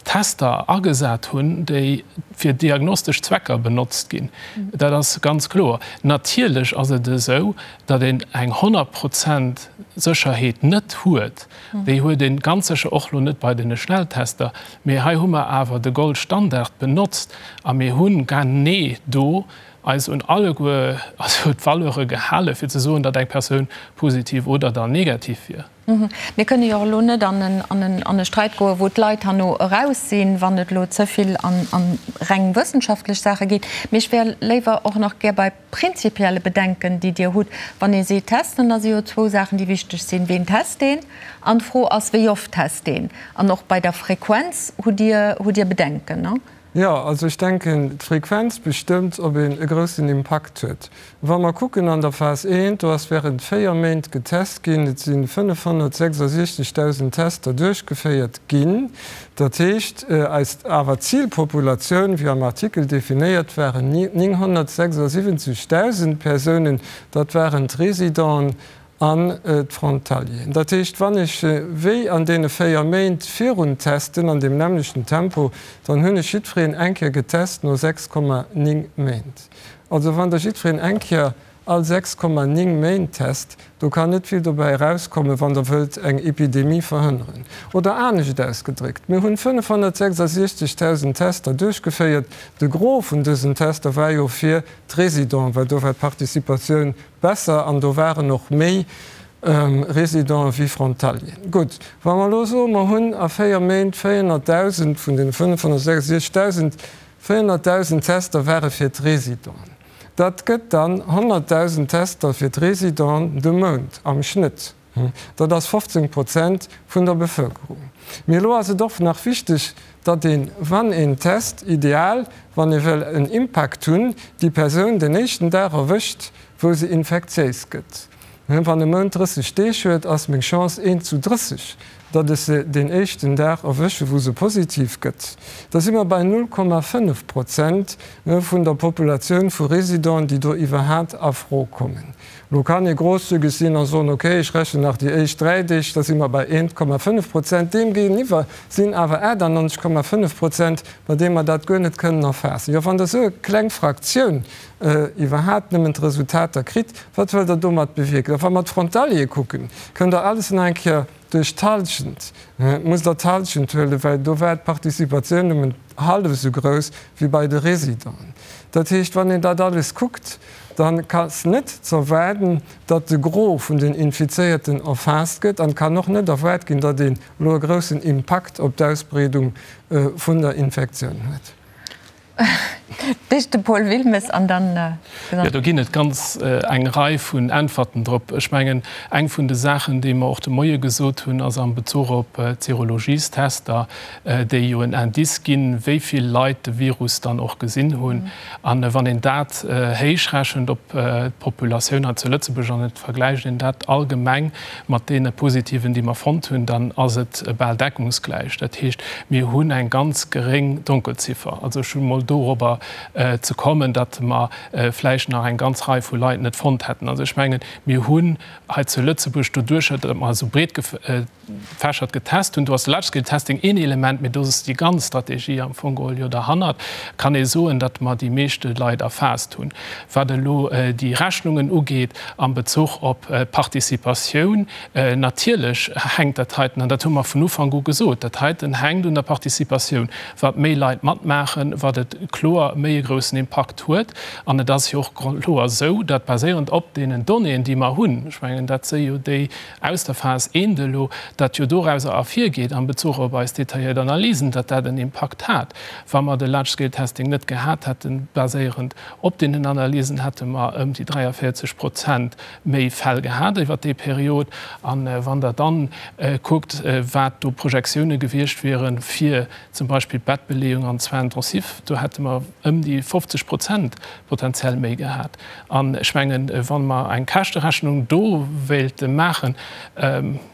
Tester agesat hunn, déi fir diagnostesch Zwecker benotzt ginn. Dat ass ganz kloer. Natierlech ass et esou, datt een eng 100 Prozent Sécherheet net huet. Déi huet ee ganz sécher och elo net bei deene Schnelltester. Mee hei hu mer awer de Goldstandard benotzt a mir hu genee do eis un alleguer, also d'Valeure gehale fir ze soen, datt eng Persoun positiv oder dann negativ wier. Mir kënne jo och elo net an e Streit goen, wou d'Leit herno eraus sinn, wann et elo ze vill an reng wëssenschaftlech Saache geet. Mee ech wär léiwer och nach gär bei prinzipielle Bedenken, déi Dir hutt. Wann ee seet testen, da si jo zwou Saachen, déi wichteg sinn, Ween test een? An d'Fro ass, wéi oft test een? An och bei der Frequenz hutt Dir, hutt Dir Bedenken, ne? Jo, also ech denken, d'Frequenz bestëmmt, ob een e groussen Impakt huet. Wa mer kucken an der Phas I, do ass während 4 Méint getest ginn, et si 566.000 Tester duerchgeféiert ginn. Dat heescht, eis awer Zilpopulatioun, wéi am Artikel definéiert, waren 976.000 Persounen, dat waren d'Residenten an d'Frontalieren. Dat heescht, wann ech wéi an deene 4 Méint virun testen, an deem nämmlechten Tempo, dann hunn ech jiddwereen eng Kéier getest no 6,9 Méint. Also wann Der jiddwereen eng Kéier all 6,9 Méint test, do kann net vill dobäi erauskommen, wann Der wëllt eng Epidemie verhënneren. Oder anescht ausgedréckt, Mir hunn 566.000 Tester duerchgeféiert. De Gros vun dësen Tester war jo fir d'Résidenten, well do war d'Participatioun Besser, an do waren och méi Résidenten wéi Frontalieren. Gutt, wa mer elo soen, mer hunn a 4 Méint 400.000 vun den 566.000, 400.000 Tester ware fir d'Résidenten. Dat gëtt dann 100.000 Tester fir d'Résidenten de Mount am Schnëtt. Dat ass 15 Prozent vun der Bevëlkerung. Mee elo ass et och nach wichteg, datt een, wann een test, ideal, wann ee wëll en Impakt hunn, déi Persoun den éischten Dag erwëscht, wou se infektiéis gëtt. Wann e Mount 30 Deeg huet, ass meng Chance eent zu 30, datt ech se deen éischten Dag erwësche wou se positiv gëtt. Da si mer bei 0,5 Prozent vun der Populatioun vu Residenten, déi do iwwerhaat a Fro kommen. Lo kann ee grosszügeg sinn a soen, ok, ech rechnen nach déi éischt 3 Deeg, da si mer bei 1,5 Prozent. Deem géigeniwwer sinn awer 98,5 Prozent, bei deem mer dat guer net kënnen erfaassen. Jo, wann Der esou e kleng Fraktioun iwwerhaapt nëmmen d'Resultater kritt, wat wëllt Der domat bewierken? A wa mer d'Frontaliere kucken, kënnt Der alles nach eng Kéier duerch d'Halschent, musst Der d'Halschent huelen, well do war d'Participatioun nëmmen hallef esou grouss wéi bei de Résidenten. Dat heescht, wann een dat alles kuckt, dann ass net z'erwaarden, datt de Gros vun den Infizéierten erfaasst gëtt an et kann och net erwaart ginn, datt een elo e groussen Impakt op d'Ausbreedung vun der Infektioun huet. D'éischt de Paul Wilmes an dann. Jo, do ginn et ganz eng Rei vun Äntwerten drop. Ech mengen, eng vun de Saachen, déi mer och de Moie gesot hunn, ass am Bezuch op d'Serologiestester, déi jo en Indice ginn, wéi vill Leit de Virus dann och gesinn hunn. A wann een dat héichrechent op d'Populatioun hei zu Lëtzebuerg an et vergläicht een dat allgemeng mat deene Positiven, déi mer fonnt hunn, dann ass et bal deckungsgläich. Dat heescht, mir hunn eng ganz geréng Donkelziffer. Also ech hu mol dorobber ze kommen, datt mer vläicht nach eng ganz Rei vu Leit net fonnt hätten. Also ech mengen, mir hunn hei zu Lëtzebuerg doduercher, datt mer esou breet gefächert getest hunn, do ass de Large-Scale-Testing een Element, mee do ass déi ganz Strategie am Fong geholl jo derhannert, kann ee soen, datt mer déi meeschte Leit erfaasst hunn. Wat elo déi Rechnungen ugeet am Bezuch op d'Participatioun, natierlech hänkt dat heiten, an dat hu mer vun Ufank u gesot, dat heiten hänkt un der Participatioun. Wat méi Leit matmaachen, wat et kloer méi e groussen Impakt huet. An et ass jo och kloer esou, datt baséierend op deenen Donnéeën, déi mer hunn, ech mengen dat si jo déi aus der Phas I elo, datt jo dorauser ervirgeet am Bezuch op eis detailléiert Analysen, datt dat en Impakt hat. Wa mer de Large-Scale-Testing net gehat hätten, baséierend op deenen Analysen, hätte mer ëm déi 43 Prozent méi Fäll gehat iwwert déi Period. A wann Der dann kuckt, wat do Projektioune gewiescht wieren, fir zum Beispill d'Bettbeleeung an d'Soins intensifs, do hätte mer ëm déi 50 Prozent potenziell méi gehat. An ech mengen, wa mer eng Käschterechnung do wéilte maachen,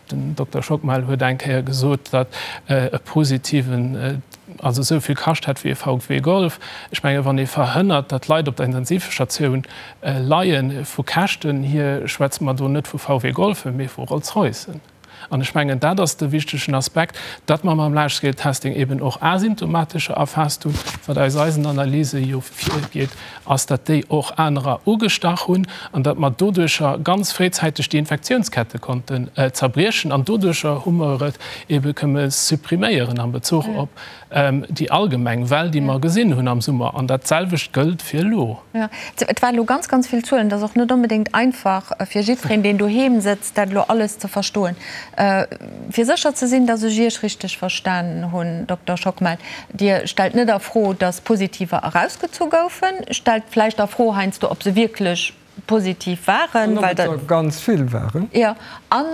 den Dokter Schockmel huet eng Kéier gesot, datt e positiven also esou vill kascht hätt wéi e VW Golf. Ech mengen, wann ee verhënnert, datt Leit op der Intensivstatioun leien, vu Käschten hier schwätze mer do net vu VW Golfen, mee vu Rolls-Roycen. An ech mengen, dat ass de wichtegen Aspekt, datt mer mam Large-Scale-Testing eben och Asymptomatescher erfaasst hunn. Wat aus eisen Analyse jo virgeet, ass, datt déi och anerer ugestach hunn an datt mer doduercher ganz fréizäiteg déi Infektiounskette konnten zerbriechen. An doduercher hu mer et ebe këmme suppriméieren am Bezuch op. déi allgemeng Well, déi mer gesinn hunn am Summer. An dat selwecht gëllt fir elo. Jo, et waren elo ganz, ganz vill Zuelen. Et ass och net onbedéngt einfach fir jiddwereen, deen doheem sëtzt, dat elo alles ze verstoen. Fir sécher ze sinn, datt ech Iech richteg verstanen hunn, Dokter Schockmel, Dir stellt net a Fro, datt Positiver erausgezu goufen, stellt vläicht a Fro heiansdo, ob se wierklech positiv waren, An ob well et der ganz vill waren. Jo, an,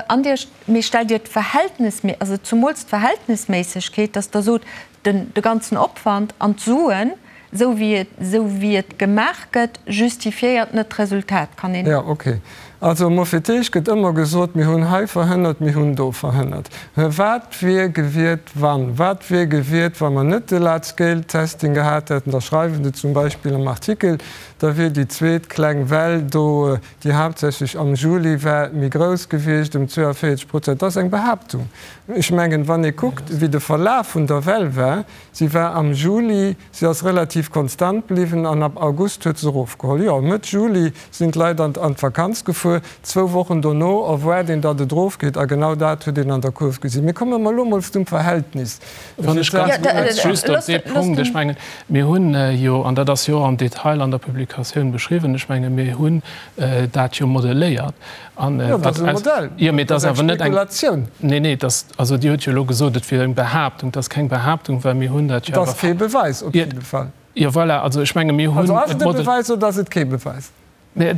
an Dir, mee stellt Dir d'Verhältnismé-, also zumools d'Verhältnisméissegkeet, datt Der sot, den, de ganzen Opwand an d'Suen, esou wéi et, esou wéi et gemaach gëtt, justifiéiert net d'Resultat, kann een. Jo, okay. Also mol fir d'éischt gëtt ëmmer gesot, mir hunn hei verhënnert, mir hunn do verhënnert. Wat wier gewiert wann? Wat wier gewiert, wa mer net de Large-Scale-Testing gehat hätten? Da schreiwen se zum Beispill am Artikel, da wier déi zweet kleng Well do, déi haaptsächlech am Juli war, méi grouss gewiescht, ëm 42 Prozent. Dat ass eng Behaaptung. Ech mengen, wann ee kuckt, wéi de Verlaf vun der Well war, si war am Juli, si ass relativ konstant bliwwen an ab August huet se erofgeholl. Jo, Mëtt Juli sinn d'Leit an d'Vakanz gefuer, zwou Wochen dono erwaart een, datt et erofgeet a genau dat huet een an der Kurv gesinn. Mee komme mer elo mol zum Verhältnis. Wann ech ganz kuerz just op dee Punkt, ech mengen, mir hunn jo, an dat ass jo och am Detail an der Publikatioun beschriwwen, ech menge mir hunn dat jo modelléiert. An Jo, dat ass e Modell, jo, mee dat ass ass eng awer net eng Spekulatioun. Nee, nee, dat, also Dir hutt jo elo gesot, et wier eng Behaaptung. Dat ass keng Behaaptung, well mir hunn dat jo Et ass awer. kee Beweis op jidde Fall. Jo, voilà, also ech menge mir hunn Also ass et et e model. Beweis oder ass et kee Beweis? Nee,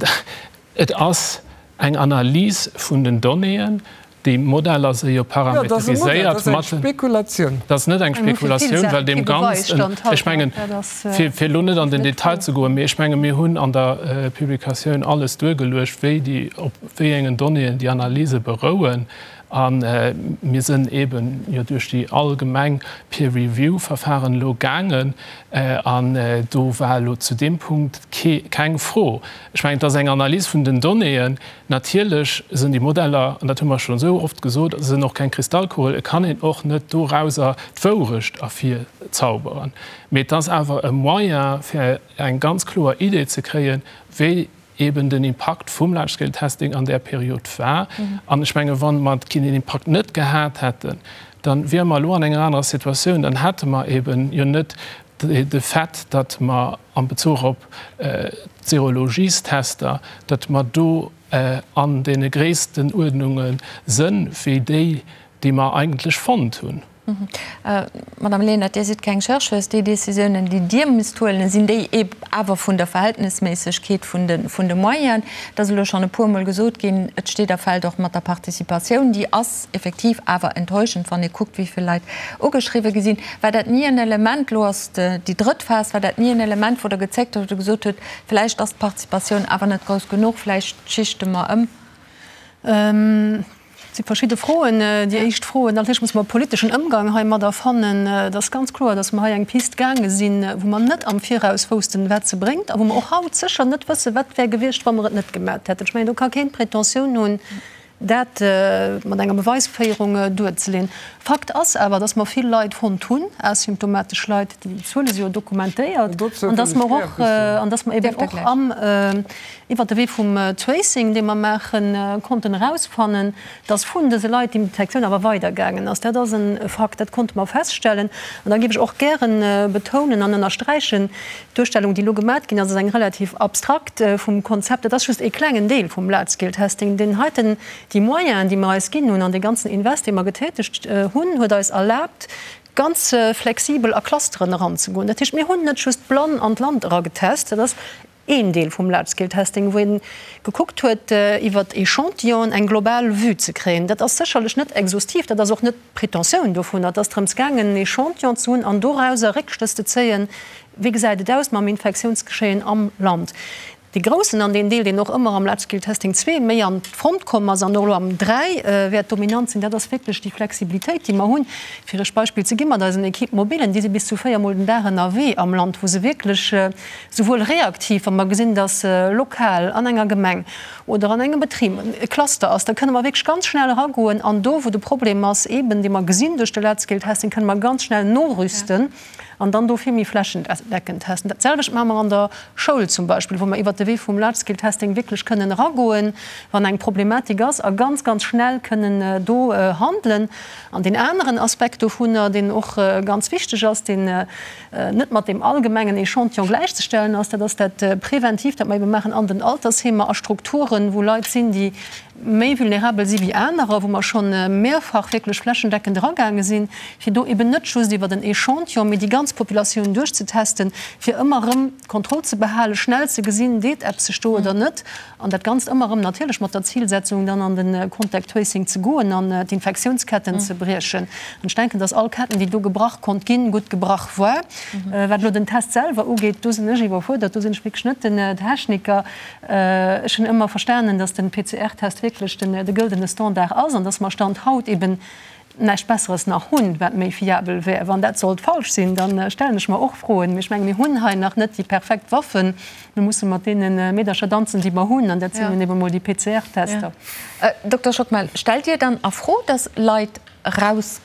et ass eng Analys vun den Donnéeën. Déi Modeller si jo Jo, dat ass e Modell, dat parameteriséiert ass eng mat. Spekulatioun. Dat ass net eng Eng fir vill Spekulatioun, Saache well deem kee Beweis Ganzen, stand haut, ech mengen, dat ass fir, fir elo net an den net Detail d'Fro. ze goen, mee ech menge mir hunn an der Publikatioun alles duergeluecht, wéi déi, op wéi engen Donnéeën déi Analyse berouen. A mir sinn eeben jo duerch déi allgemeng Peer-Review-Verfahren elo gaangen an do war elo zu deem Punkt kee, keng Fro. Ech mengen, et ass eng Analys vun den Donnéeën. Natierlech sinn déi Modeller, an dat hu mer schonn esou oft gesot, sinn och keng Kristallkugel. Et kann een och net dorauser d'Wourecht ervirzauberen. Mee et ass awer e Moyen, fir eng ganz kloer Idee ze kréien, wéi eben den Impakt vum Large-Scale Testing an där Period war. An ech menge wa mer deen Impakt net gehat hätten, da wiere mer elo an enger anerer Situatioun. Dann hätte mer eben jo net de Fait, datt mer am Bezuch op d'Serologiestester, datt mer do an deene Gréisstenuerdnunge sënn wéi déi, déi mer eigentlech fonnt hunn. Madame Lenert, Dir sidd keng Chercheuse. Déi Décisiounen, déi Dir misst huelen, sinn déi awer vun der Verhältnisméissegkeet vun de Moyenen? Et ass elo schonn e puermol gesot ginn, et steet a fält och mat der Participatioun. Déi ass effektiv awer enttäuschend, wann ee kuckt, wéi vill Leit ugeschriwwe gi sinn. War dat ni en Element, elo ass déi drëtt Phas, war dat ni en Element, wou Der gezéckt hutt, wou Der gesot hutt, vläicht ass d'Participatioun awer net grouss genuch, vläicht schichte mer ëm? Et si verschidde Froen. Déi éischt Fro, natierlech muss mer e politeschen Ëmgang heimadder fannen. Et ass ganz kloer, datt mer hei eng Pist gaange sinn, wou mer net am Viraus woussten, wat se bréngt a wou mer och haut sécher net wëssen, wat wär gewiescht, wa mer et net gemat hätten. Ech mengen, do ka keen d'Pretentioun hunn, dat mat enger Beweisféierung duerzeleeën. Fakt ass awer, dass mer vill Leit fonnt hunn, asymptomatesch Leit, déi Zuele si jo dokumentéiert, an dass mer och, an dass mer eben och am, iwwert de Wee vum Tracing, dee mer maachen, konnten erausfannen, dass vun dëse Leit déi Infektioun awer weidergaangen ass. Dat ass e Fakt, dat konnte mer feststellen. An da géif ech och gären betounen an ënnersträichen, D'Duerstellung, déi elo gemat ginn ass, ass eng relativ abstrakt vum Konzept. Dat ass just ee klengen Deel vum Large-Scale-Testing. Deen heiten, déi Moyenen, déi mer eis ginn hunn an dee ganzen Invest, dee mer getätegt hunn, huet eis erlaabt, ganz flexibel a Clusteren eranzegoen. Dat heescht, mir hunn net just blann an d'Land eragetest, dat ass een Deel vum Large-Scale-Testing, wou ee gekuckt huet, iwwer Echantillonen eng global Vue ze kréien. Dat ass sécherlech net exhaustiv, dat ass och net d'Pretentioun dovunner. Et ass drëms gaangen, en Echantillon ze hunn an dorauser Réckschlëss ze zéien, Wéi gesäit et aus mam Infektiounsgeschéien am Land? Dee groussen an deen Deel, deen och ëmmer am Large Scale Testing 2 méi an d'Front komm ass an och elo am 3 wäert dominant sinn, dat ass wierklech déi Flexibilitéit, déi mer hunn. Fir Iech Beispill ze gi mat eisen Équipes mobilen, déi si bis zu véiermol den Dag ënnerwee am Land, wou se wierklech souwuel reaktiv, wa mer gesinn, dass lokal an enger Gemeng oder an engem Betrib e Cluster ass, da kënne mer wierklech ganz schnell eragoen an do, wou de Problem ass, eeben dee mer gesinn duerch de Large Scale Testing, kënne mer ganz schnell norüsten. An dann do vill méi flächendeckend testen. Dat selwecht maache mer an der Schoul zum Beispill, wou mer iwwert de Wee vum Large-Scale-Testing wierklech kënnen eragoen, wann eng Problematik ass, a ganz, ganz schnell kënnen do handelen. An deen aneren Aspekt dovunner, deen och ganz wichteg ass, deen net mat deem allgemengen Echantillon gläichzestellen ass, dat ass dat Preventiivt, dat mer ebe maachen an den Altersheemer, a Strukturen, wou Leit sinn, déi méi vulnerabel si wéi anerer, wou mer scho mehrfach wierklech flächendeckend eragaange sinn, fir do eben net just iwwer en Echantillon, mee déi ganz Populatioun duerchzetesten, fir ëmmer erëm d'Kontroll ze behalen, schnell ze gesinn, deet eppes sech do oder net, an dat Ganzt ëmmer erëm natierlech mat der Zilsetzung, dann an de Contact Tracing ze goen an d'Infektiounsketten ze briechen. An ech denken, dass all Ketten, déi do gebrach konnt ginn, gutt gebrach war. Wat elo den Test selwer ugeet, do sinn ech iwwerfuerdert, do sinn ech wierklech net den Techniker. Ech hunn ëmmer verstanen, dass den PCR-Test wierklech den de gëldene Standard ass an dass mer Stand haut eben näischt Besseres nach hunn, wat méi fiabel wär. Wann dat sollt falsch sinn, da stellen ech mer och Froen. Mee ech menge mir hunn hei nach net déi perfekt Waffen. Mir musse mat deene Meedercher danzen, déi mer hunn, an dat sinn nun eben emol déi PCR-Tester. Dokter Schockmel, stellt Dir dann a Fro, dass Leit raus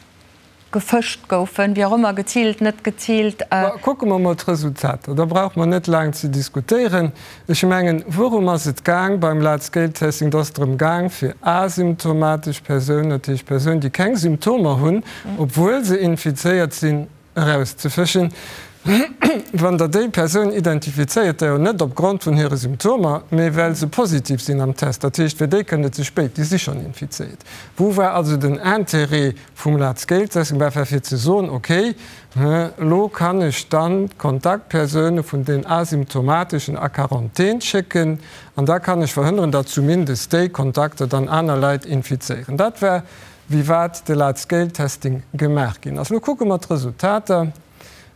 gefëscht goufen, wéi och ëmmer, geziilt, net geziilt. Mä kucke mer emol d'Resultater, da brauche mer net laang ze diskutéieren. Ech mengen, wourum ass et gaang beim Large-Scale-Testing? Et ass drëm gaang, fir asymptomatesch Persounen, dat heescht Persounen, déi keng Symptomer hunn, obwuel se infizéiert sinn, erauszefëschen. Wann Der déi Persoun identifizéiert, da jo net opgrond vun hire Symptomer, mee well se positiv sinn am Test, dat heescht, fir déi kënnt et ze spéit, déi si schonn infizéiert. Wou war also den Intérêt vum Large-Scale-Testing war fir ze soen, okay, elo kann ech dann d'Kontaktpersoune vun den Asymptomateschen a Quarantän schécken an da kann ech verhënneren, datt zumindest déi Kontakter dann aner Leit infizéieren. Dat war, wéi wat de Large-Scale-Testing gemaach ginn ass. Elo kucke mer d'Resultater.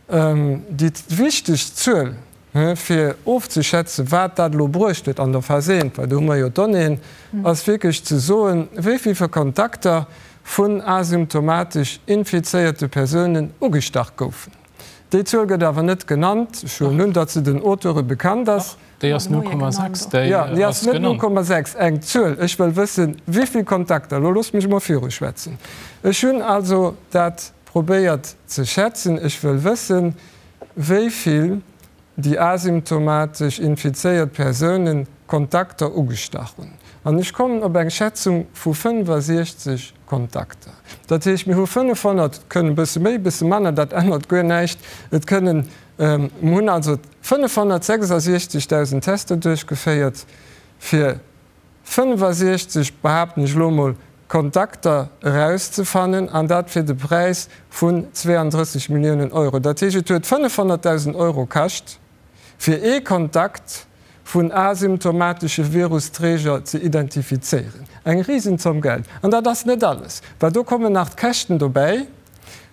Déi wichteg Zuel, Fir ofzeschätzen, wat dat elo bruecht huet an der Phas I, well do hu mer jo d'Donnéeën, ass wierklech ze soen, wéi vill Kontakter vun asymptomatesch infizéierte Persounen ugestach goufen. Déi Zuel gëtt awer net genannt. Ech huelen un, datt se den Auteure bekannt ass. Déi ass 0,6, déi Jo, déi ass net 0,6, eng Zuel. Ech wëll wëssen, wéi vill Kontakter. Elo loosst mech emol viruschwätzen. Ech hunn also dat probéiert ze schätzen. Ech wëll wëssen, wéi vill déi asymptomatesch infizéiert Persounen Kontakter ugestach hunn. An ech kommen op eng Schätzung vu 65 Kontakter. Dat heescht, mir hu 500, et kënnen e bësse méi, e bësse manner, dat ännert guer näischt, et kënnen, mir hunn also 566.000 Tester duerchgeféiert, fir 65, behaapten ech elo emol, Kontakter erauszefannen, an dat fir de Präis vun 32 Milliounen Euro. Dat heescht, et huet 500.000 Euro kascht, fir ee Kontakt vun asymptomatesche Virusträger ze identifizéieren. Eng Risenzomm Geld. An dat ass net alles, well do kommen nach d'Käschten dobäi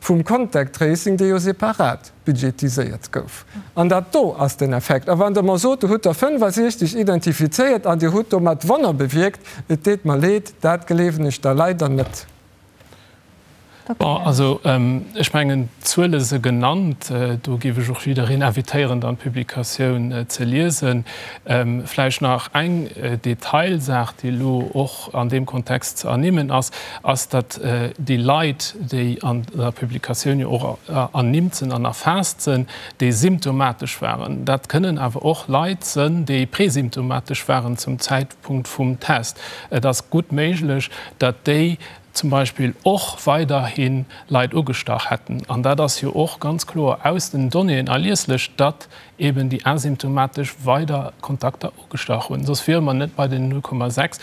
vum Contact Tracing, dee jo separat budgetiséiert gouf. An dat do ass den Effekt. A wann Der mer sot, do hutt Der 65 identifizéiert an Dir hutt domat Wonner bewierkt, et deet mer leed, dat gleewen ech da leider net. Bon, also ech mengen, d'Zuele se genannt. Do géif ech och jiddereen invitéieren, dann d'Publikatioun ze liesen. Vläicht nach eng Detailsaach, déi elo och an deem Kontext ze ernimmen ass, ass, datt déi Leit, déi an der Publikatioun jo och ernimmt sinn an erfaasst sinn, déi symptomatesch waren, dat kënnen awer och Leit sënn, déi presymptomatesch waren zum Zäitpunkt vum Test. Et ass gutt méiglech, datt déi zum Beispill och weiderhi Leit ugestach hätten. An dat ass jo och ganz kloer aus den Donnéeën erlieslech, datt eben déi asymptomatesch weider Kontakter ugestach hunn. Soss wiere mer net bei den 0,6.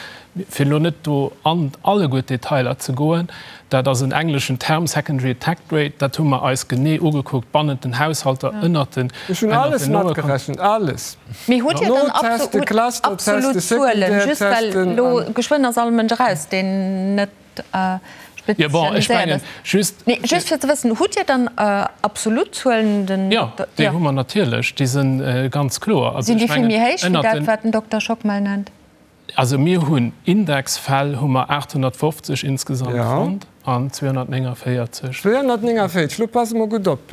Fir elo net do an alleguer d'Detailer ze goen, dat ass en engleschen Term, secondary attack rate, dat hu mer eis genee ugekuckt bannent den Haushalter, ënnert den Ech hunn alles matgerechent, alles. Mee hutt Dir dann absolut Zuelen, just well elo geschwënn ass all Mënsch eraus, deen net spezialiséiert ass. Nee, just fir ze wëssen, hutt Dir dann absolut Zuelen? Den Jo, déi hu mer natierlech, déi si ganz kloer. Sinn déi vill méi héich wéi dat, wat den Dokter Schockmel nennt? Also mir hunn Indexfäll hu mer 850 insgesamt fonnt an 249. 249, lo passe mer gutt op,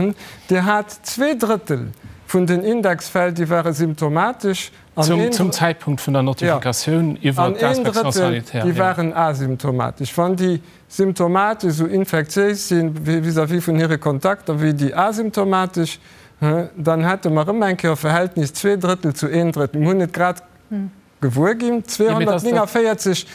Dir hat zweedrëttel. vun den Indexfäll, déi ware symptomatesch an een. Zum Zäitpunkt vun der Notifikatioun iwwert d'Inspection sanitaire, jo. An een Drëttel, déi waren asymptomatesch. Wann déi symptomatesch esou infektiéis si vis-à-vis vun hire Kontakter wéi déi asymptomatesch, dann hätte mer erëm eng Kéier e Verhältnis 2 Drëttel zu een Drëttel. Mir hunn et grad gewuer ginn, 249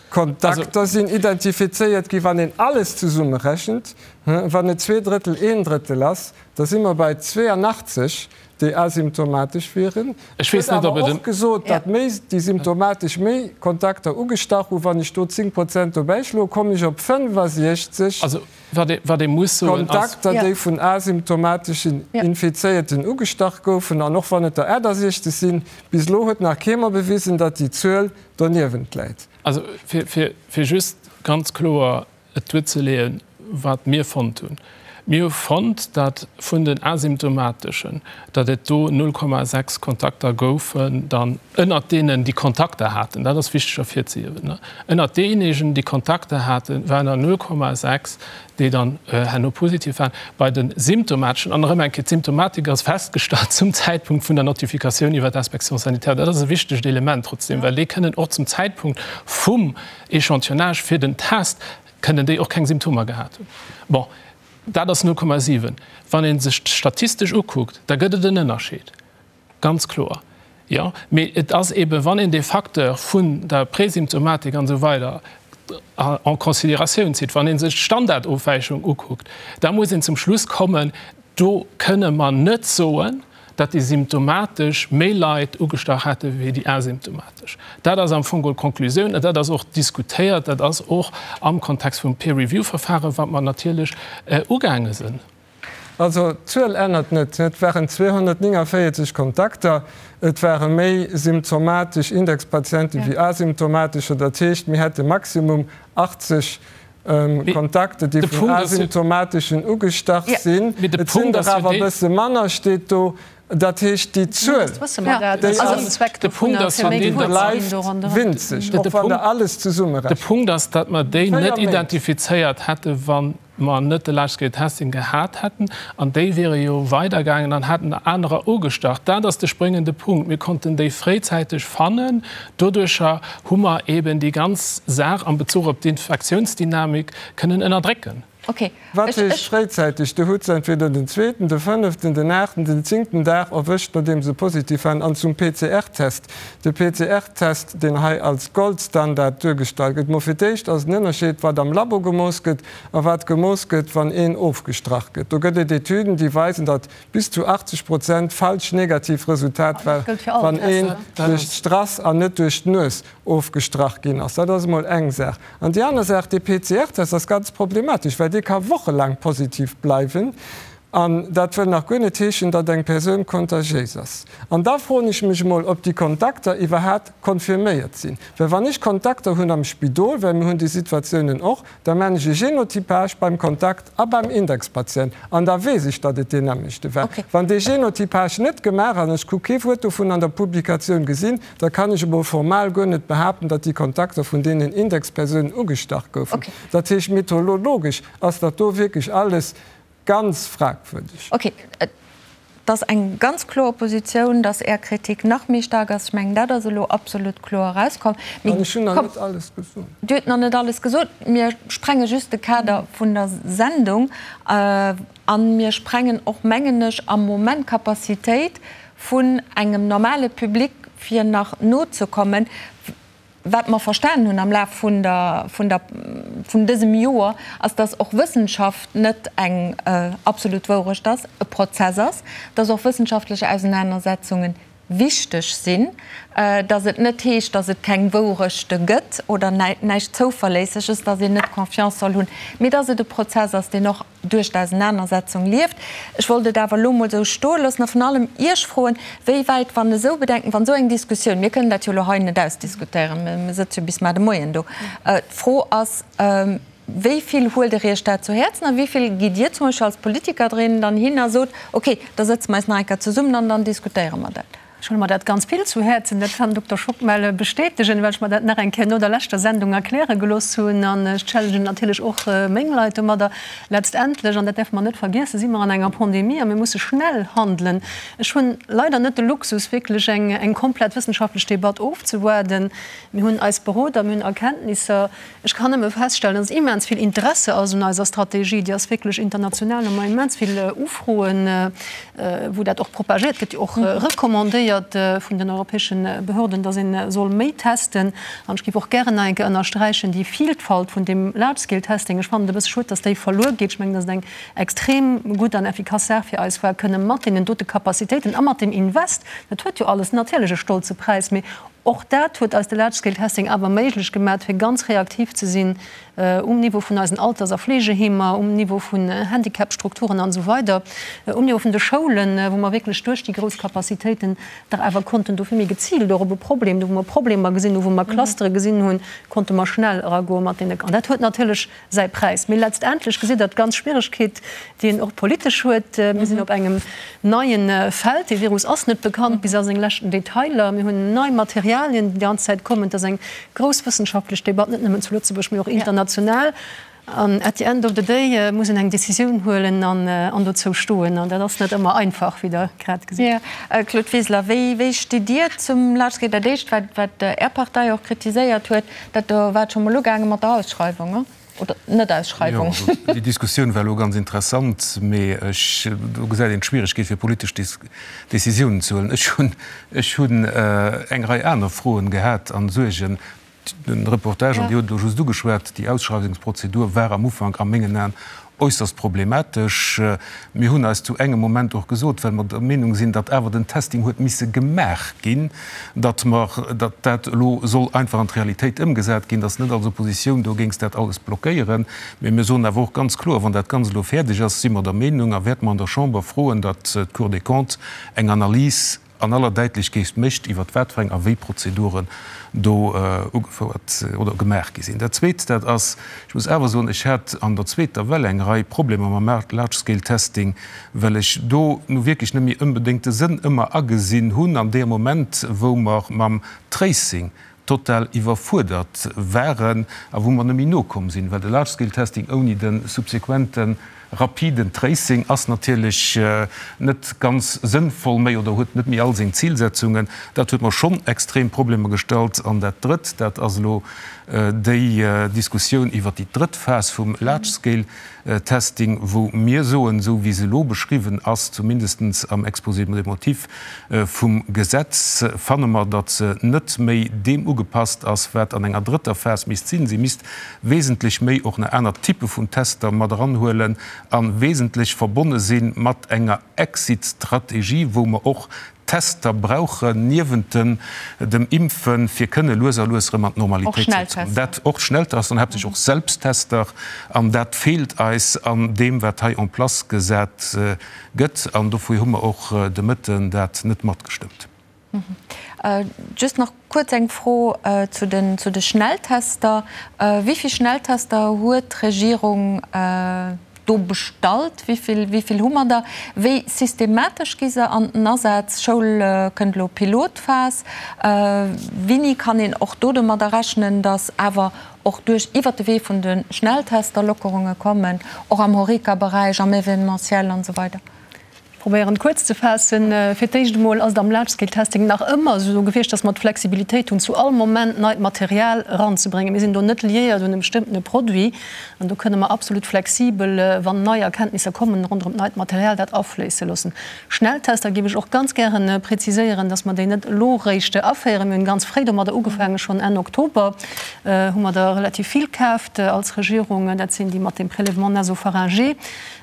Kontakter sinn identifizéiert ginn. Wann een alles zesummerechent, wann et 2 Drëttel, een Drëttel ass, da si mer bei 82, déi asymptomatesch wieren. Ech weess net, ob et en. Och gesot, datt méi déi symptomatesch méi Kontakter ugestach hunn. Wann ech do 10 Prozent dobäischloen, kommen ech op 65 Also, wat ee, wat ee muss soen, ass. Kontakter, déi vun asymptomateschen Infizéierten ugestach goufen. An och wann et der 68 sinn, bis elo huet nach kee mer bewisen, datt déi Zuel doniewent läit. Also, fir, fir, fir just ganz kloer et duerzeleeën, wat mir fonnt hunn. Mir hu fonnt, datt vun den Asymptomateschen, datt et do 0,6 Kontakter goufen, dann ënnert deenen, déi Kontakter haten, dat ass wichteg ervirzehiewen, ënnert deejéinegen, déi Kontakter haten, waren der 0,6, déi dann herno positiv waren. Bei de Symptomateschen, an erëm eng Kéier, d'Symptomatik ass festgestallt zum Zäitpunkt vun der Notifikatioun iwwer d'Inspection sanitaire, dat ass e wichtegt Element trotzdem, well déi kënnen och zum Zäitpunkt vum Echantillonnage fir den Test kënnen déi och keng Symptomer gehat hunn. Bon, dat ass 0,7. Wann ee sech d'statistesch ukuckt, da gëtt et en Ënnerscheed, ganz kloer, jo. Mee et ass eeben, wann een dee Facteur vun der Präsymptomatik an esou weider en considératioun zitt, wann ee sech d'Standardofwäichung ukuckt, da muss een zum Schluss kommen, do kënne mer net soen, datt déi symptomatesch méi Leit ugestach hätte wéi déi asymptomatesch. Dat ass am Fong geholl d'Konklusioun an dat ass och diskutéiert, dat ass och am Kontext vum Peer-Review-Verfaren, wat mer natierlech ugaange sinn. Also d'Zuel ännert net. Et waren 249 Kontakter, et ware méi symptomatesch Indexpatiente wéi asymptomatescher. Dat heescht, mir hätte maximum 80 Kontakter, déi vun Asymptomateschen ugestach sinn. Et sinn der awer e bësse manner, steet do. Dat heescht, déi Zuel, déi ass, bleift winzeg, och wann Der alles zesummerechent. De Punkt ass, datt mer déi net identifizéiert hätten, wa mer net de Large-Scale Testing gehat hätten. An déi wiere jo weidergaangen an hätten anerer ugestach. Dat ass de spréngende Punkt. Mir konnten déi fréizäiteg fannen. Doduercher hu mer eben déi ganz Saach am Bezuch op d'Infektiounsdynamik kënnen ënnerdrécken. Okay. Wat heescht fréizäiteg? Du hutt se entweder den zweeten, de fënneften, den aachten, den zéngten Dag erwëscht, nodeem se positiv waren, an zum PCR-Test. De PCR-Test, deen hei als Goldstandard duergestallt gëtt, mo fir d'éischt ass en Ënnerscheed, wat am Labo gemooss gëtt a wat gemooss gëtt, wann een ofgestrach gëtt. Do gëtt et Etüden, déi weisen, datt bis zu 80 Prozent falsch negativ Resultat war, wann een duerch d'Strass an net duerch d'Nues ofgestrach ginn ass. Dat ass emol eng Saach. An déi aner Saach, dee PCR-Test ass ganz problematesch, well dee ka wochelaang positiv bleiwen. An dat wëll nach guer net heeschen, datt eng Persoun kontagiéis ass. An da froen ech mech emol, ob déi Kontakter iwwerhat confirméiert sinn. Well wann ech Kontakter hunn am Spidol, well mir hunn déi Situatiounen och, Da maan ech e Genotypage beim Kontakt a beim Indexpatient an da weess ech, datt et deen nämmlechte war. Wann dee Genotypage net gemaach ass, an ech hu kee Wuert dovun an der Publikatioun gesinn, da kann ech emol formal guer net behaapten, datt déi Kontakter vun deenen Indexpersounen ugestach goufen. Dat heescht, methodologesch ass dat do wierklech alles Ganz fragwürdeg. Ok, et ass eng ganz kloer Positioun, dass Är Kritik nach méi staark ass. Ech mengen, dat ass elo absolut kloer erauskomm. An ech hunn nach net alles gesot. Dir hutt nach net alles gesot. Mir sprenge just de Kader vun der Sendung a mir sprengen och, mengen ech, am Moment d'Capacitéit vun engem normale Public, fir nach nozekommen. Wat mer verstanen hunn am Laf vun der, vun der, vun dësem Joer, ass, dass och Wëssenschaft net eng absolut Wourecht ass, e Prozess ass, dass och wëssenschaftlech Ausenanersetzungen wichteg sinn, dass et net heescht, dass et keng Wourechte gëtt oder näischt Zouverléisseges, dass een net Confiance soll hunn, mee dass et e Prozess ass, deen och duerch d'Ausenanersetzung lieft. Ech wollt et awer elo emol esou stoe loossen a vrun allem Iech froen, wéi wäit, wann esou Bedenken, wann esou eng Diskussioun, mir kënnen dat jo elo hei net ausdiskutéieren, mir sëtze jo bis mar de Moien do, d'Fro ass, wéi vill huelt Der Iech dat zu Häerzen a wéi vill gitt Dir zum Beispill als Politiker drin dann hin a sot, okay, da sëtze mer eis nach eng Kéier zesummen an dann diskutéiere mer dat? Ech huele mer dat ganz vill zu Häerzen. Dat kann den Dokter Schockmel bestätegen, well ech mer dat nach eng Kéier no der leschter Sendung erkläre gelooss hunn. An ech challengen natierlech och meng Leit domadder. Letztendlech, an dat däerfe mer net vergiessen, si mer an enger Pandemie a mir musse schnell handelen. Ech hunn leider net de Luxus, wierklech eng komplett wëssenschaftlech Debatt ofzewaarden. Mir hunn eis Beroder, mir hunn Erkenntnisser. Ech kann nëmme feststellen, dass immens vill Interesse ass un eiser Strategie. Déi ass wierklech international, hu mer immens vill Ufroen, wou dat och propagéiert gëtt, och recommandéiert vun den europäesche Behörden, dass ee soll méi testen. An ech géif och gären nach eng Kéier ënnersträichen, déi Vielfalt vun deem Large-Scale-Testing, ech fannen et e bësse schued, dass déi verluer geet. Ech mengen, dass et eng extrem gutt an effikass Saach fir eis war, kënne mat deenen dote Capacitéiten a mat deem Invest, dat huet jo alles natierlech e stolze Präis, mee Och dat huet eis de Large-Scale-Testing awer méiglech gemat, fir ganz reaktiv ze sinn um Niveau vun eisen Alters a Fleegeheemer, um Niveau vun Handicapstrukturen an esou weider, um Niveau vun de Schoulen, wou mer wierklech duerch déi grouss Capacitéiten dach awer konnten do vill méi geziilt och op e Problem, do wou mer Problemer gesinn hunn, wou mer Clustere gesinn hunn, konnte mer schnell eragoe mat deene. An dat huet natierlech säi Präis. Mee letztendlech gesitt Der d'ganz Schwieregkeet, déi een och politesch huet. Mir sinn op engem neie Feld. Dee Virus ass net bekannt bis a seng leschten Detailer. Mir hunn nei Materialien, déi déi ganz Zäit kommen. Et ass eng grouss wëssenschaftlech Debatt, net nëmmen zu Lëtzebuerg, mee och international. An at the end of the day muss een eng Decisioun huelen an dozou stoen. An dat ass net ëmmer einfach, wéi Der grad gesitt. Claude Wiseler, wéi stitt Dir zum Large-Scale? Dat Éischt, wat Är Partei och kritiséiert huet, Dat do war et scho mol ugaange mat der Ausschreiwung, oder Net-Ausschreiwung. Jo, also déi Diskussioun war elo ganz interessant, mee ech, do gesäit een d'Schwieregkeet fir politesch Décisiounen ze huelen. Ech hunn, ech hunn eng Rei aner Froen gehat an Suergen. Den Reportage, an Dir hutt et elo just ugeschwat, déi Ausschreiwungsprozedur war am Ufank a mengen Aen äusserst problematesch. Mir hunn eis zu engem Moment och gesot, well mer der Meenung sinn, datt awer den Testing huet misse gemaach ginn, datt mer, datt dat elo soll einfach an d'Realitéit ëmgesat ginn, datt net als Oppositioun do géings dat alles blockéieren. Mee mir soen awer och ganz kloer, wann dat Ganzt elo fäerdeg ass, si mer der Meenung a wäerte mer an der Chamber froen, datt d'Cour des Comptes eng Analys an aller Däitlechkeet mécht, iwwert wat fir eng a wéi Prozeduren do ugefouert oder gemaach gi sinn. Dat Zweet, dat ass, ech muss awer soen, ech hat an der zweeter Well eng Rei Problemer mam Large-Scale-Testing, well ech do nu wierklech net méi onbedéngt de Sënn ëmmer agesinn hunn an deem Moment, wou mer mam Tracing total iwwerfuerdert waren a wou mer net méi nokomm sinn, well de Large-Scale-Testing ouni de subsequente rapiden Tracing ass natierlech net ganz sënnvoll méi oder huet net méi all seng Zilsetzungen. Dat huet mer schonn extrem Problemer gestallt. An dat Drëtt, dat ass elo déi Diskussioun iwwert déi drëtt Phas vum Large-Scale-Testing, wou mir soen, esou wéi se elo beschriwwen ass, zumindest am Exposé des motifs vum Gesetz, fanne mer, datt se net méi deem ugepasst ass, wat an enger drëtter Phas misst sinn. Si misst wesentlech méi och nach aner Typpe vun Tester mat eranhuelen a wesentlech verbonne si mat enger Exit-Strategie, wou mer och Tester brauchen niewent dem Impfen, fir kënne lues a lues erëm an d'Normalitéit zréckzekommen. Dat och Schnelltester an haaptsächlech och Selbsttester. An dat feelt eis an deem, wat hei en place gesat gëtt. An dofir hu mer och de Mëtten dat net matgestëmmt. Just nach kuerz eng Fro zu den zu de Schnelltester. Wéi vill Schnelltester huet d'Regierung do bestallt? Wéi vill, wéi vill hu mer der? Wéi systematesch gi se an den Asaz? Schoul kënnt elo Pilotphas. Wéini kann een och do domadder rechnen, datt awer och duerch iwwert de Wee vun de Schnelltester Lockerunge kommen, och am Horeca-Beräich, am Événementiel an esou weider? Ech probéieren et kuerz ze faassen. Fir d'éischt emol ass et am Large-Scale-Testing nach ëmmer esou gewiescht, dass mer d'Flexibilitéit hunn, zu all Moment neit Material eranzebréngen. Mir sinn do net liéiert un e bestëmmtene Produit an do kënne mer absolut flexibel, wann nei Erkenntnisser kommen ronderëm d'neit Material, dat afléisse loossen. Schnelltester géif ech och ganz gäre preziséieren, dass mer déi net elo eréischt aféieren. Mir hunn ganz fréi domadder ugefaangen, schonn Enn Oktober hu mer der relativ vill kaaft als Regierung. Dat sinn déi mat dem Prélèvement nasopharyngé.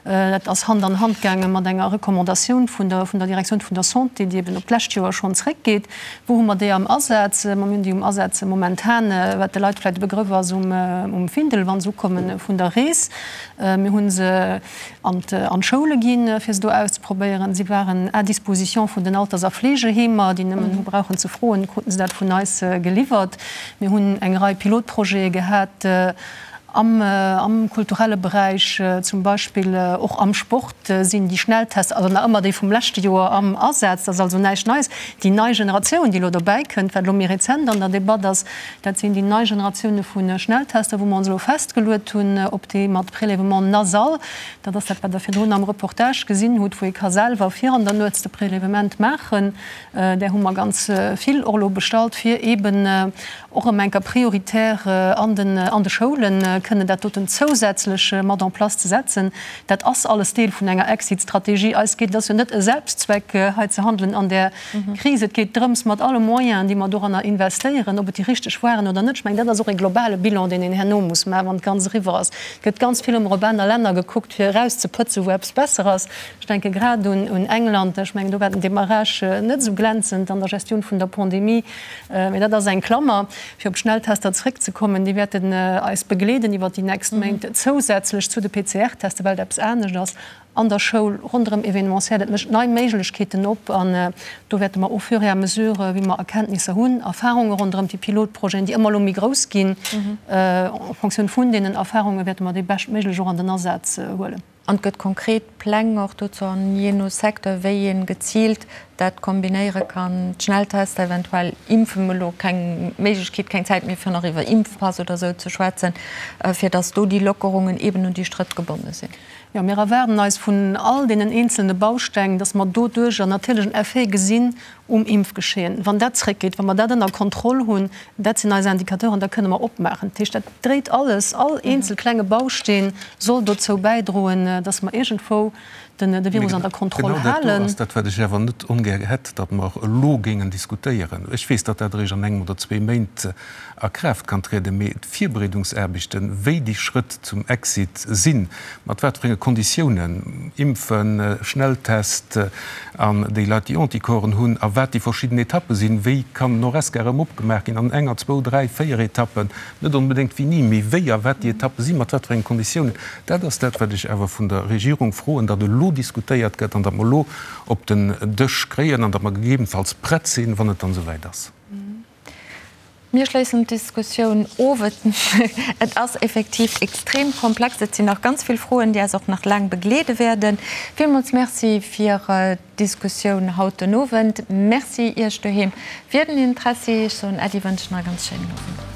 Dat ass Hand an Hand gaange mat enger Recommandatioun vun der vun der Direktioun vun der Santé, déi eben op d'lescht Joer schonn zréckgeet. Wou hu mer déi am Asaz? Ma mir hunn déi um Asaz momentan, wat de Leit vläicht e Begrëff ass, um um Findel, wa se ukomme vun der Rees. Mir hu se an an d'Schoule ginn, fir se do auszeprobéieren. Si waren à disposition vun den Alters a Fleegeheemer, déi nëmmen hu brauchen ze froen, kruten se dat vun eis geliwwert. Mir hunn eng Rei Pilotprojete gehat. Am kulturelle Beräich zum Beispill, och am Sport sinn déi Schnelltests, also nach ëmmer déi vum leschte Joer, am Asaz. Dat ass also näischt Neies. Déi nei Generatioun, déi elo dobäi kënnt, wat elo méi rezent an der Debatt ass, dat sinn déi nei Generatioune vu Schnelltester, wou mer ons elo festgeluet hunn op déi mat Prélèvement nasal. Dat ass dat, wat Der virdrun am Reportage gesinn hutt, wou ee ka selwer vir an der Nuets de Prélèvement maachen. Där hu mer ganz vill och elo bestallt, fir eeben och erëm eng Kéier prioritär an den an de Schoulen kënnen dat doten zousätzlech mat en place ze setzen. Dat ass alles Deel vun enger Exit-Strategie. Eis geet, et ass jo net e Selbstzweck hei ze handelen an där Kris, et geet drëms mat alle Moyenen, déi mer doranner investéieren, ob et déi richteg waren oder net. Ech mengen, dat ass och e globale Bilan, deen een herno muss maachen, wann d'Ganz eriwwer ass. Et gëtt ganz vill ëmmer op aner Länner gekuckt, fir erauszepëtzen, wou eppes besser ass. Ech denke grad un England. Ech mengen, do war den Démarrage net esou glänzend an der Gestioun vun der Pandemie. Mee dat ass eng Klammer. Fir op d'Schnelltester zréckzekommen, déi wäerten eis begleeden iwwert déi nächst Méint, zousätzlech zu de PCR-Tester, well et eppes anescht ass an der Schoul, ronderëm Événementiel. Et mécht nei Méiglechkeeten op an do wäerte mer au fur et à mesure, wéi mer Erkenntnisser hunn, Erfarunge ronderëm déi Pilotprojeten, déi ëmmer elo méi grouss ginn, en Fonctioun vun deenen Erfarunge wäerte mer déi beschtméiglech och an den Asaz huelen. An et gëtt konkret Pläng och dozou an jee no Secteur, wéi ee geziilt dat kombinéiere kann, d'Schnelltester, eventuell Impfen, elo keng Méiglechkeet, keng Zäit méi fir nach iwwer Impfpass oder esou ze schwätzen, fir datt do déi Lockerungen eeben un déi Strëtt gebonne sinn. Jo, mir erwaarden eis vun all deenen eenzelne Bausteng, datt mer doduercher natierlech en Effet gesinn um Impfgeschehen. Wann dat zréckgeet, wa mer dat ënner Kontroll hunn, dat sinn eis Indicateuren, da kënne mer opmaachen. Dat heescht, dat dréit alles, all eenzel klenge Bausteen soll dozou bäidroen, datt mer iergendwou de Virus an der Kontroll Genau dat do halen. ass dat, wat ech awer net ongär hätt, datt mer elo géingen diskutéieren. Ech weess, datt dat eréischt an engem oder zwee Méint a Kraaft kann trieden, mee d'Virbereedungsaarbechten, wéi déi Schrëtt zum Exit sinn, mat wat fir enge Konditiounen, Impfen, Schnelltest an déi Leit, déi Anticorpsen hunn, a wat déi verschidden Etappe sinn, wéi kann den Horesca erëm opgemaach ginn an enger, zwou, dräi, véier Etappen, net onbedéngt wéini, mee wéi a wat déi Etappe sinn, mat wat fir enge Konditiounen, dat ass dat, wat ech awer vun der Regierung froen, datt elo diskutéiert gëtt an datt mer elo op den Dësch kréien an datt mer gegebenfalls prett sinn, wann et dann esouwäit ass. Mir schléissen d'Diskussioun of. Et ass effektiv extrem komplex. Et sinn nach ganz vill Froen, déi eis och nach laang begleede wäerden. Villmools Merci fir d'Diskussioun haut den Owend. Merci Iech doheem fir den Interessi. Ech soen Äddi, wënschen e ganz schéinen Owend.